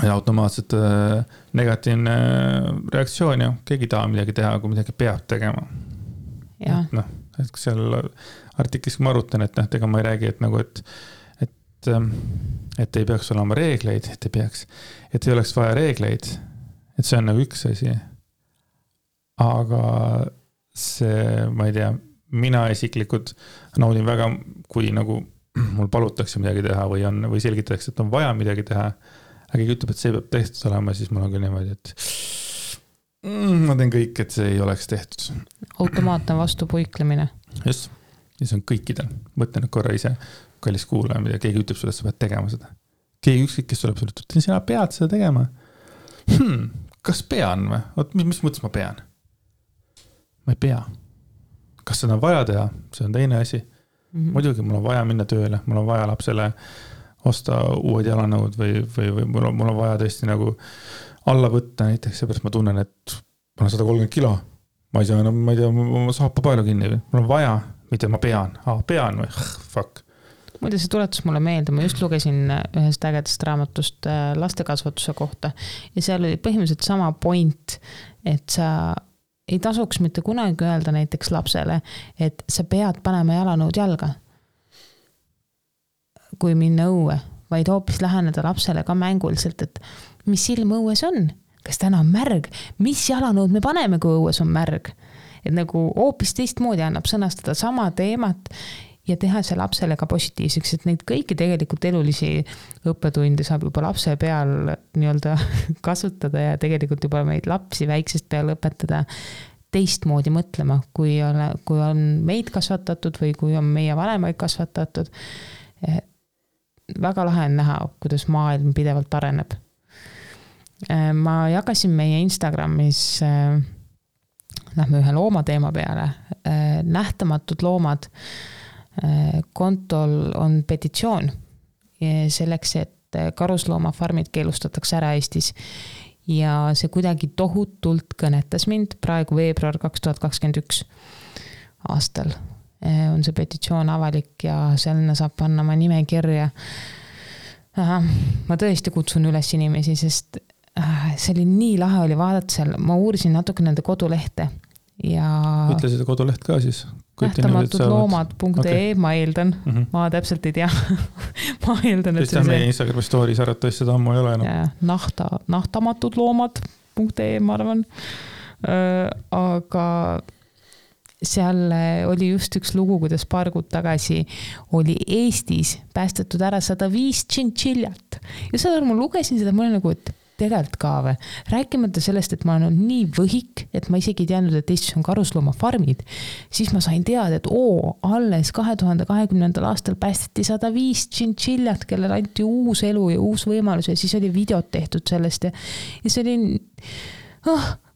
Ja automaatselt negatiivne reaktsioon ja keegi taha midagi teha, kui midagi peab tegema. Ja. Et seal artiklis ma arutan, et ega ma ei räägi, et nagu, et ei peaks olema reegleid, et ei oleks vaja reegleid, et see on nagu üks asi. Aga see, ma ei tea, mina isiklikult naudin väga, kui nagu mul palutakse midagi teha või selgitatakse, et on vaja midagi teha, aga keegi ütleb, et see peab tehtud olema, siis mul on küll niimoodi, et ma teen kõik, et see ei oleks tehtud. Automaatne vastupuiklemine. Just, ja see on kõikidel. Mõtle nüüd korra ise, kallis kuulaja, mida keegi ütleb sulle, et sa pead tegema seda. Keegi ükskõik, kes tuleb sulle, et sina pead seda tegema. Kas pean või? Mis mõttes ma pean? Ma ei pea. Kas seda on vaja teha? See on teine asi. Muidugi mul on vaja minna tööle, mul on vaja lapsele osta uued jalanõud või mul on vaja tõesti nagu alla võtta näiteks, seepärast ma tunnen, et ma olen 130 kilo. Ma ei saa enam, ma ei tea, ma saapa palju kinni. Mul on vaja, mitte ma pean. Pean või? Fuck. Muide, see tuletus mulle meelde, ma just lugesin ühest ägedast raamatust lastekasvatuse kohta ja seal oli põhimõtteliselt sama point, et sa ei tasuks mitte kunagi öelda näiteks lapsele, et sa pead panema jalanõud jalga, kui minna õue, vaid hoopis läheneda lapsele ka mänguliselt, et mis ilm õues on, kas täna on märg, mis jalanõud me paneme, kui õues on märg. Et nagu hoopis teistmoodi annab sõnastada sama teemat ja teha see lapsele ka positiivseks, et neid kõiki tegelikult elulisi õppetunde saab juba lapse peal nii-öelda kasutada ja tegelikult juba meid lapsi väiksest peal õpetada teistmoodi mõtlema, kui on meid kasvatatud või kui on meie vanemaid kasvatatud. Väga lahe on näha, kuidas maailm pidevalt areneb. Ma jagasin meie Instagramis, lähme ühe loomateema peale, nähtamatud loomad. Kontol on petitsioon selleks, et karusloomafarmid keelustatakse ära Eestis ja see kuidagi tohutult kõnetas mind praegu veebruar 2021 aastal. On see petitsioon avalik ja selline saab panna ma nimekirja. Ma tõesti kutsun üles inimesi, sest see oli nii lahe oli vaadata seal, ma uurisin natuke nende kodulehte ja ütle seda koduleht ka siis. nähtamatudloomad.ee okay. Ma eeldan, ma täpselt ei tea. Ma eeldan, et see meie Instagrami stories arvatavasti seda ammu ei ole enam. Nähtamatudloomad.ee ma arvan. Aga seal oli just üks lugu, kuidas paar kuud tagasi oli Eestis päästetud ära 105 tšintšiljat. Ja seda ma lugesin seda, ma olen nagu, et tegelikult ka või. Rääkimata sellest, et ma olen nii võhik, et ma isegi ei teadnud, et Eestis on karusloomafarmid. Siis ma sain teada, et alles 2020. aastal päästeti 105 tšintšiljat, kellel anti uus elu ja uus võimalus ja siis oli videot tehtud sellest ja see oli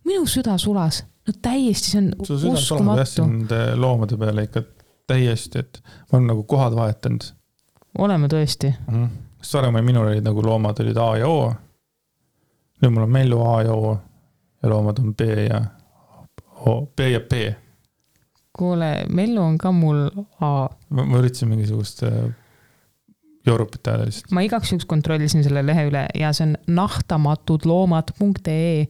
minu süda sulas. No täiesti, see on uskumatu. Nende loomade peale ikka täiesti, et ma olen nagu kohad vahetanud. Oleme tõesti. Saremai minul olid nagu loomad olid A ja O. Nüüd mul on Mellu A ja O ja loomad on B ja O, B ja P. Kuule, Mellu on ka mul A. Ma üritasin mingisugust joorupit ajada lihtsalt. Ma igaks juks kontrollisin selle lehe üle ja see on nähtamatudloomad.ee.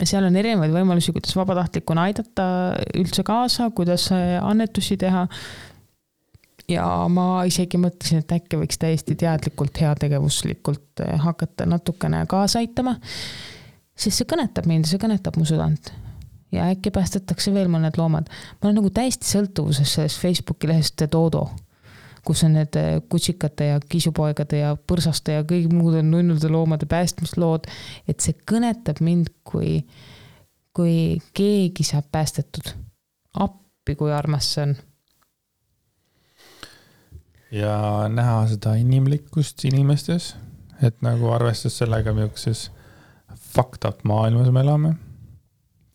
Seal on erinevaid võimalusi, kuidas vabatahtlikuna aidata üldse kaasa, kuidas annetusi teha. Ja ma isegi mõtlesin, et äkki võiks täiesti teadlikult, heategevuslikult hakata natukene kaasa aitama, sest see kõnetab mind, see kõnetab mu südant. Ja äkki päästetakse veel mõned loomad. Ma olen nagu täiesti sõltuvuses sellest Facebooki lehest Dodo, kus on need kutsikate ja kisupoegade ja põrsaste ja kõik muud on nunnude loomade päästmislood, et see kõnetab mind, kui keegi saab päästetud. Appi, kui armas see on. Ja näha seda inimlikkust inimestes, et nagu arvestas sellega, milles fucked up maailmas me elame,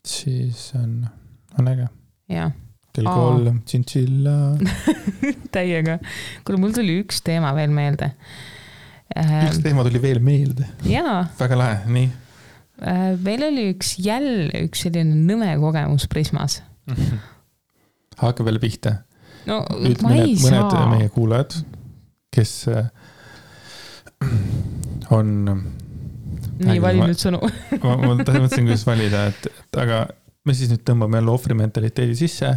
siis on äge. Jah. Kell 3, tšintšilla. Täiega. Kuule, mul tuli üks teema veel meelde. Üks teema tuli veel meelde? Jaa. Väga lahe, nii? Meil oli üks selline nõme kogemus Prismas. Hakka veel pihta. No, nüüd mõned meie kuulajad, kes on nii vali nüüd sõnu. ma mõtlesin, kuidas valida, et aga me siis nüüd tõmbame jälle ohvrimentaliteedi sisse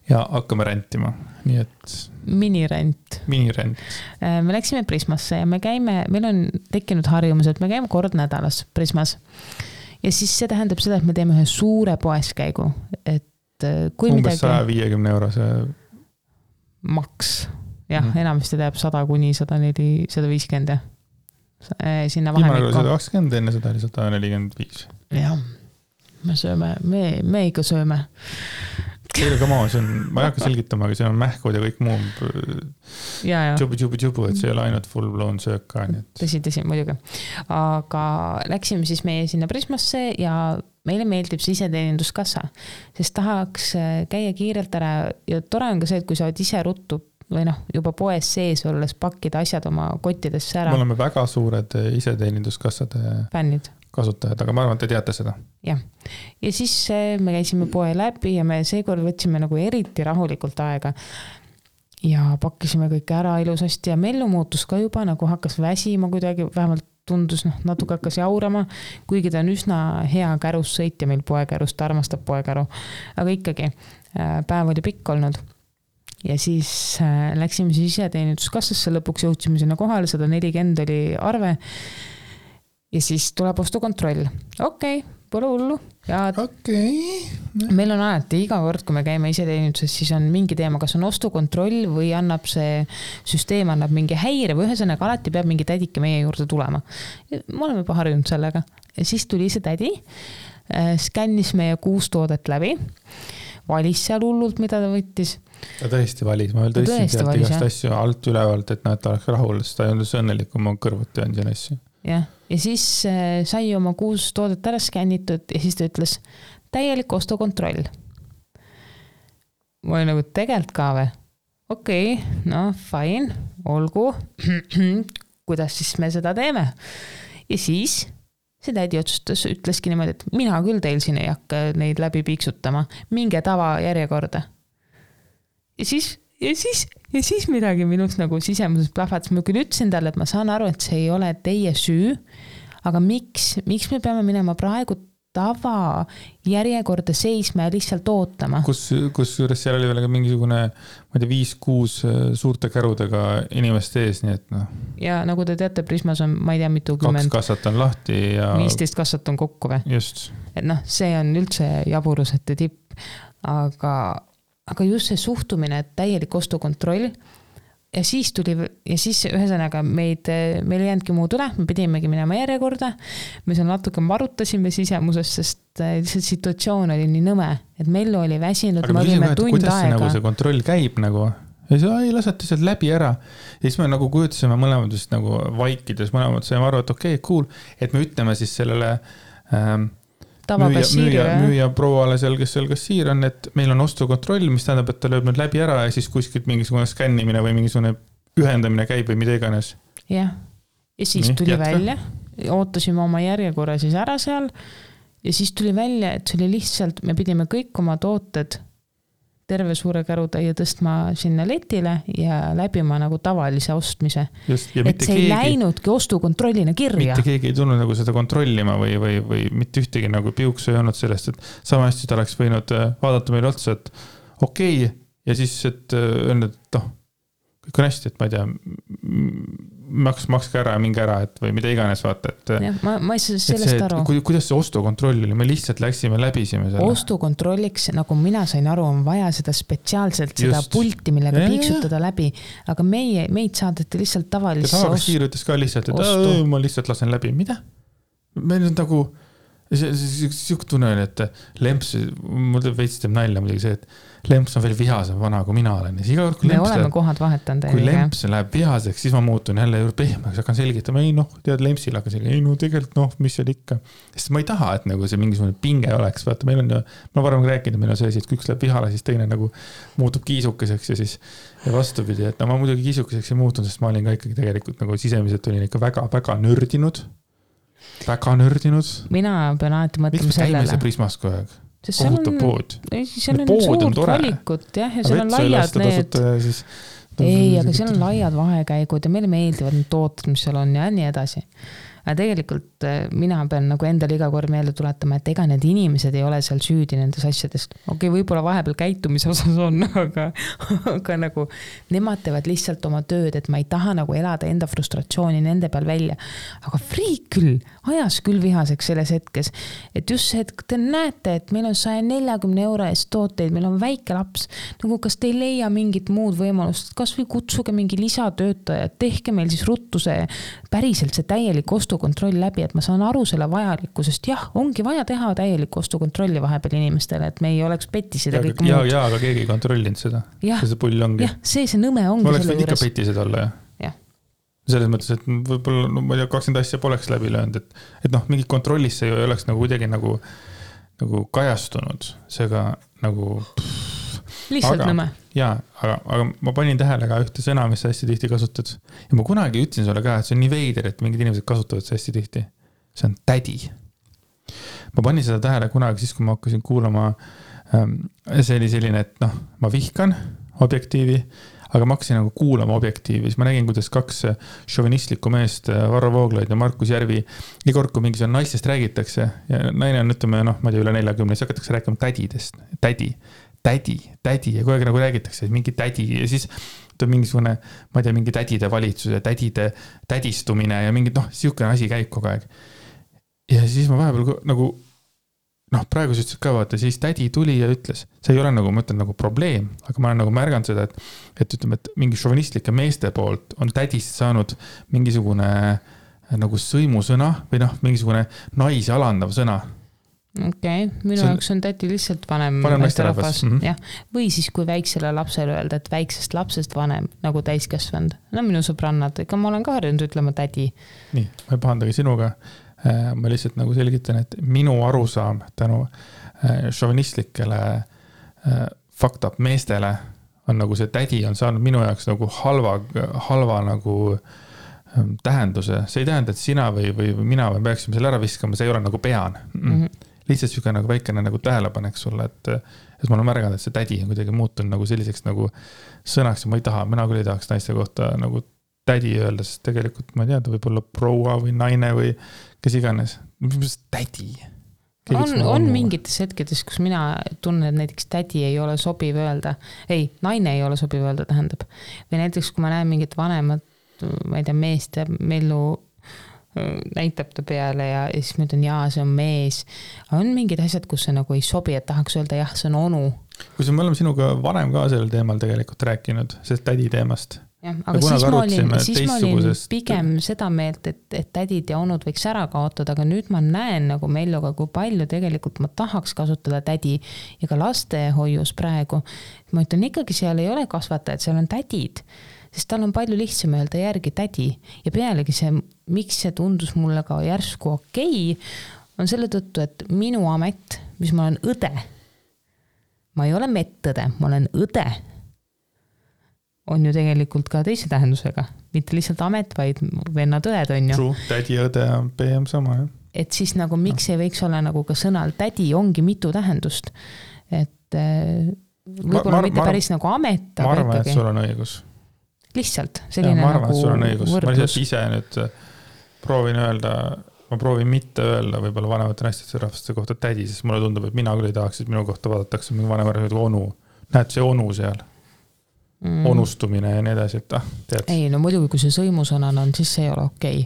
ja hakkame rentima. Nii et Minirent. Me läksime Prismasse ja meil on tekkinud harjumus, et me käime kord nädalas Prismas. Ja siis see tähendab seda, et me teeme ühe suure poeskäigu. Et kui umbes 150 eurose maks. jah, enamasti teeb 100 kuni 104, 150 jah. Sinna vahemikku. 120, enne seda oli 145. Jah, me sööme, me ikka sööme. Teile ka maa, ma ei hakka selgitama, aga see on mähkud ja kõik muu tšubu, et see ei ole ainult full blown söök ka. Tõsi, muidugi. Aga läksime siis meie sinna Prismasse ja meile meeldib see iseteeninduskassa, sest tahaks käia kiirelt ära ja tore on ka see, et kui sa oled ise ruttu või juba poes sees olles pakkida asjad oma kottidesse ära. Me oleme väga suured iseteeninduskassade fännid. Kasutajad, aga ma arvan, et te teate seda. Jah. Ja siis me käisime poe läbi ja me seekord võtsime nagu eriti rahulikult aega ja pakkisime kõik ära ilusasti ja Mellu muutus ka juba nagu hakkas väsima kuidagi, vähemalt tundus, natuke hakkas jaurama, kuigi ta on üsna hea kärus sõitja meil poekärus, ta armastab poekäru, aga ikkagi päev oli pikk olnud. Ja siis läksime siis iseteeninduskassasse, lõpuks jõudsime sinna kohale, 140 oli arve. Ja siis tuleb ostukontroll. Okei, pole hullu. Meil on alati iga kord, kui me käime iseteeninduses, siis on mingi teema, kas on ostukontroll või annab see süsteem annab mingi häire või ühesõnaga alati peab mingi tädike meie juurde tulema. Me oleme juba harjunud sellega. Ja siis tuli see tädi, skännis meie 6 toodet läbi, valis seal hullult, mida ta võttis. Ta tõesti valis, ma veel tõstin sealt igast asju alt ülevalt, et ta oleks rahul, sest ta ei olnud õnnelik, kui ma kõrvuti on siin asju. Ja siis sai oma 6 toodet ära skännitud ja siis ta ütles täielik ostukontroll. Ma olin nagu tegelt ka või? Okei, fine, olgu. Kuidas siis me seda teeme? Ja siis see tädi otsustas, ütleski niimoodi, et mina küll teil siin ei hakka neid läbi piiksutama. Minge tava järjekorda. Ja siis midagi minust nagu sisemuses plahvatas. Ma küll ütlesin talle, et ma saan aru, et see ei ole teie süü, aga miks me peame minema praegu tava järjekorda seisma ja lihtsalt ootama? Kus juures seal oli veel mingisugune, ma ei tea, 5-6 suurte kärudega inimeste ees, nii et Ja nagu te teate, Prismas on, ma ei tea, mitu 2 kassat on lahti ja 15 kassat on kokku või? Just. Et see on üldse jaburusete tipp, aga just see suhtumine, et täielik ostukontroll ja siis ühesõnaga meil ei jäändki muud üle, me pidimegi minema järjekorda, me seal natuke marutasime sisemuses, sest lihtsalt situatsioon oli nii nõme, et Mellu oli väsinud, me olime tund aega. Kuidas see nagu see kontroll käib nagu? Ja siis ei lasete sealt läbi ära. Ja siis me nagu kujutasime mõlemad just nagu vaikides, mõlemad saime aru, et okei, cool, et me ütleme siis sellele müüja prouale seal, kes seal kassiir on, et meil on ostukontroll, mis tähendab, et ta lööb nüüd läbi ära ja siis kuskilt mingisugune skännimine või mingisugune ühendamine käib või mida iganes. Jah, ja siis tuli välja, ootasime oma järjekorra siis ära seal ja siis tuli välja, et see oli lihtsalt, me pidime kõik oma tooted terve suure kärutäie tõstma sinna letile ja läbima nagu tavalise ostmise. Just, et see ei läinudki ostukontrollina kirja. Mitte keegi ei tulnud nagu seda kontrollima või mitte ühtegi nagu piuksu ei olnud sellest, et sama hästi ta oleks võinud vaadata meil otsa, et okei, ja siis, et öelnud, et kõik on hästi, et ma ei tea, makske ära ja minge ära, et või mida iganes vaata, et ja, ma ei saa sellest aru. Kuidas see ostukontroll oli? Me lihtsalt läksime läbisime selle. Ostukontrolliks, nagu mina sain aru, on vaja seda spetsiaalselt, seda pulti, millega piiksutada läbi, aga meid saadeti lihtsalt tavalisse Tavakassiir ütles ka lihtsalt, et ma lihtsalt lasen läbi. Mida? Meil on nagu siuke tunne, et Lemps, mul veits teeb nalja muidugi see, et Lemps on veel vihasem vana, kui mina olen. Me oleme kohad vahetanud. Kui Lemps läheb vihaseks, siis ma muutun jälle juurde pehmeks, hakkan selgitama, tead Lempsil hakkan selgitama, tegelikult mis seal ikka. Sest ma ei taha, et nagu see mingisugune pinge oleks. Vaata, meil on ju, ma varem rääkinud, meil on see asi, et kui üks läheb vihale, siis teine nagu muutub kiisukeseks ja siis ja vastupidi, et ma muidugi kiisukeseks ei muutun, sest ma olin ka ikkagi tegelikult nagu sisemiselt olin ikka väga nördinud. Väga nördinud. Mina pean alati mõtlema sellele. Miks me käime see Prismas kogu aeg? Kohutav pood. Seal on suurt valikut, jah, ja seal on laiad need. Ei, aga seal on laiad vahekäigud ja meile meeldivad need tooted, mis seal on ja nii edasi. Aga tegelikult mina pean nagu endale iga kord meelde tuletama, et ega need inimesed ei ole seal süüdi nendes asjadest. Okei, võib-olla vahepeal käitumise osas on, aga nagu nemad teevad lihtsalt oma tööd, et ma ei taha nagu elada enda frustratsiooni nende peal välja. Aga friik küll, ajas küll vihaseks selles hetkes. Et just see, et te näete, et meil on 140 € eest tooteid, meil on väike laps. Nagu kas te ei leia mingit muud võimalust, kas kas või kutsuge mingi lisatöötaja, tehke meil siis ruttu see päriselt see täielik ostukontroll läbi, et ma saan aru selle vajalikkusest. Jah, ongi vaja teha täielik ostukontrolli vahepeal inimestele, et me ei oleks pettised ja kõik muud. Ja, aga keegi ei kontrollinud seda. See pull ongi. Jah, see nõme ongi ma oleks võinud ikka pettised olla, jah. Selles mõttes, et võib-olla, no ma ei tea, 20 asja poleks läbi löönud, et noh, mingi kontrollisse ei oleks nagu kuidagi nagu kajastunud, seega nagu lihtsalt nõme. Jaa, aga ma panin tähele ka ühte sõna, mis hästi tihti kasutad. Ja ma kunagi ütlesin sulle ka, et see on nii veider, et mingid inimesed kasutavad see hästi tihti. See on tädi. Ma panin seda tähele kunagi siis, kui ma hakkasin kuulama, see oli selline, et noh, ma vihkan objektiivi, aga ma hakkasin nagu kuulama objektiivi, siis ma nägin, kuidas 2 šovinistlikku meest, Varro Vooglaid ja Markus Järvi, iga kord, kui mingi naistest räägitakse ja naine on, ütleme, noh, ma ei tea, üle 40, siis hakatakse rääkima tädidest, tädi ja kogu aeg nagu räägitakse, et mingi tädi ja siis tuleb mingisugune, ma ei tea, mingi tädide valitsus ja tädide tädistumine ja mingi, noh, siukene asi käib kogu aeg. Ja siis ma vahepeal nagu, noh, praegu sa ütlesid ka vaata, siis tädi tuli ja ütles, see ei ole nagu, ma ütlen, nagu probleem, aga ma olen nagu märganud seda, et ütleme, et mingi šovinistlike meeste poolt on tädist saanud mingisugune nagu sõimusõna või noh, mingisugune naisi alandav sõna. Okei, minu jaoks on tädi lihtsalt vanem rahvas. Jah. Või siis, kui väiksele lapsele öelda, et väiksest lapsest vanem nagu täiskasvanud. No minu sõbrannad, ega ma olen ka harjunud ütlema tädi. Nii, ma ei pahandagi sinuga. Ma lihtsalt nagu selgitan, et minu arusaam tänu šovinistlikele fucked up meestele on nagu see tädi on saanud minu jaoks nagu halva nagu tähenduse. See ei tähenda, et sina või mina või peaksime selle ära viskama, see ei ole nagu pean. Lihtsalt süga nagu väikene nagu tähelepanek sulle, et ma olen märganud, et see tädi on kuidagi muutunud nagu selliseks nagu sõnaks ja ma ei taha, mina küll ei tahaks naiste kohta nagu tädi öelda, sest tegelikult ma ei tea, ta võib olla proua või naine või kes iganes. Mis tädi? On mingites hetkedes, kus mina tunnen, et näiteks tädi ei ole sobiv öelda. Ei, naine ei ole sobiv öelda, tähendab. Või näiteks, kui ma näen mingit vanemat, ma ei tea, meest ja mellu näitab ta peale ja siis ma ütlen, jaa, see on mees. On mingid asjad, kus see nagu ei sobi, et tahaks öelda, jah, see on onu. Kui me oleme sinuga varem ka sellel teemal tegelikult rääkinud, sellest tädi teemast. Ja, aga siis ma olin pigem seda meelt, et tädid ja onud võiks ära kaotada, aga nüüd ma näen nagu Melluga, kui palju tegelikult ma tahaks kasutada tädi ja ka lastehoius praegu. Ma ütlen ikkagi, seal ei ole kasvatajad, seal on tädid, sest tal on palju lihtsam öelda järgi tädi ja pealegi see, miks see tundus mulle ka järsku okei, on selle tõttu, et minu amet, mis ma olen õde, ma ei ole mettõde, ma olen õde, on ju tegelikult ka teise tähendusega. Mitte lihtsalt amet, vaid vennad õed on ju. True, tädi ja õde on PM sama, jah. Et siis nagu miks ei võiks olla nagu ka sõnal tädi ongi mitu tähendust. Et võib-olla mitte päris nagu amet, aga ma arvan, ikkagi. Et sul on õigus. Lihtsalt selline ma arvan, nagu et sul on õigus. võrdlus. Ma lihtsalt ise nüüd proovin mitte öelda võib-olla vanemate naistesse rahvaste kohta tädi, sest mulle tundub, et mina küll ei tahaks, et minu kohta vaadatakse mingi vanemad onu. Näed see onu seal. Onustumine ja nii edasi, et tead. Ei, no muidugi, kui see sõimusõnana on, siis see ei ole okei.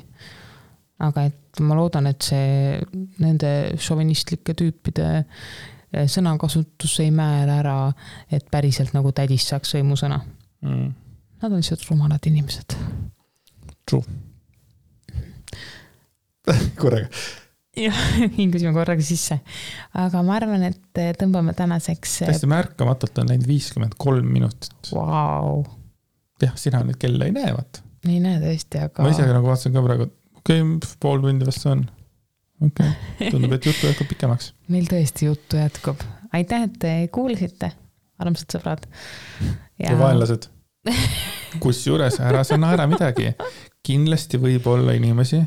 Aga et ma loodan, et see nende šovinistlike tüüpide sõnakasutus ei määra ära, et päriselt nagu tädist saaks sõimusõna. Nad on lihtsalt rumalad inimesed. True. Korraga. Jah, hingusime korraga sisse. Aga ma arvan, et tõmbame tänaseks... Täiesti märkamatult on läinud 53 minutit. Wow. Jah, sina nüüd kella ei näe, vaat. Ei näe tõesti, aga... Ma ise nagu vaatasin ka praegu, pool tundi vast on. Tundub, et juttu jätkub pikemaks. Meil tõesti juttu jätkub. Aitäh, et te kuulisite, armsad sõbrad. Ja vaenlased. Kus juures ära sa naera midagi. Kindlasti võib olla inimesi,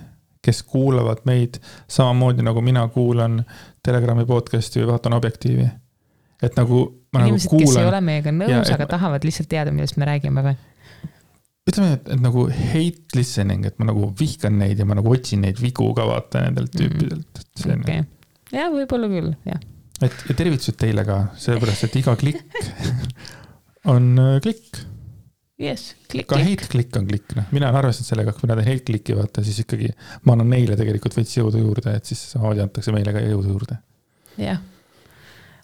kes kuulavad meid samamoodi nagu mina kuulan Telegrami podcasti või vaatan objektiivi. Et nagu ma inimesed, nagu kuulan... kes ei ole meiega nõus, aga tahavad lihtsalt teada, millest me räägime või? Ütleme, et nagu hate listening, et ma nagu vihkan neid ja ma nagu otsin neid vigu ka vaata nendelt tüüpidelt. Okay. Ja, võib-olla küll, jah. Ja tervitused teile ka, sellepärast, et iga klikk on klikk. Yes, klikk. Ka hate-klikk on klikk. Mina olen arvestanud sellega, kui mina teen hate-klikki vaata, siis ikkagi ma annan neile tegelikult veits jõudu juurde, et siis samamoodi antakse meile ka jõudu juurde. Jah.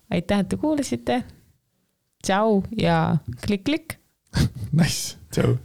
Aitäh, et te kuulasite. Tšau ja klikk-klikk. Nice, tšau.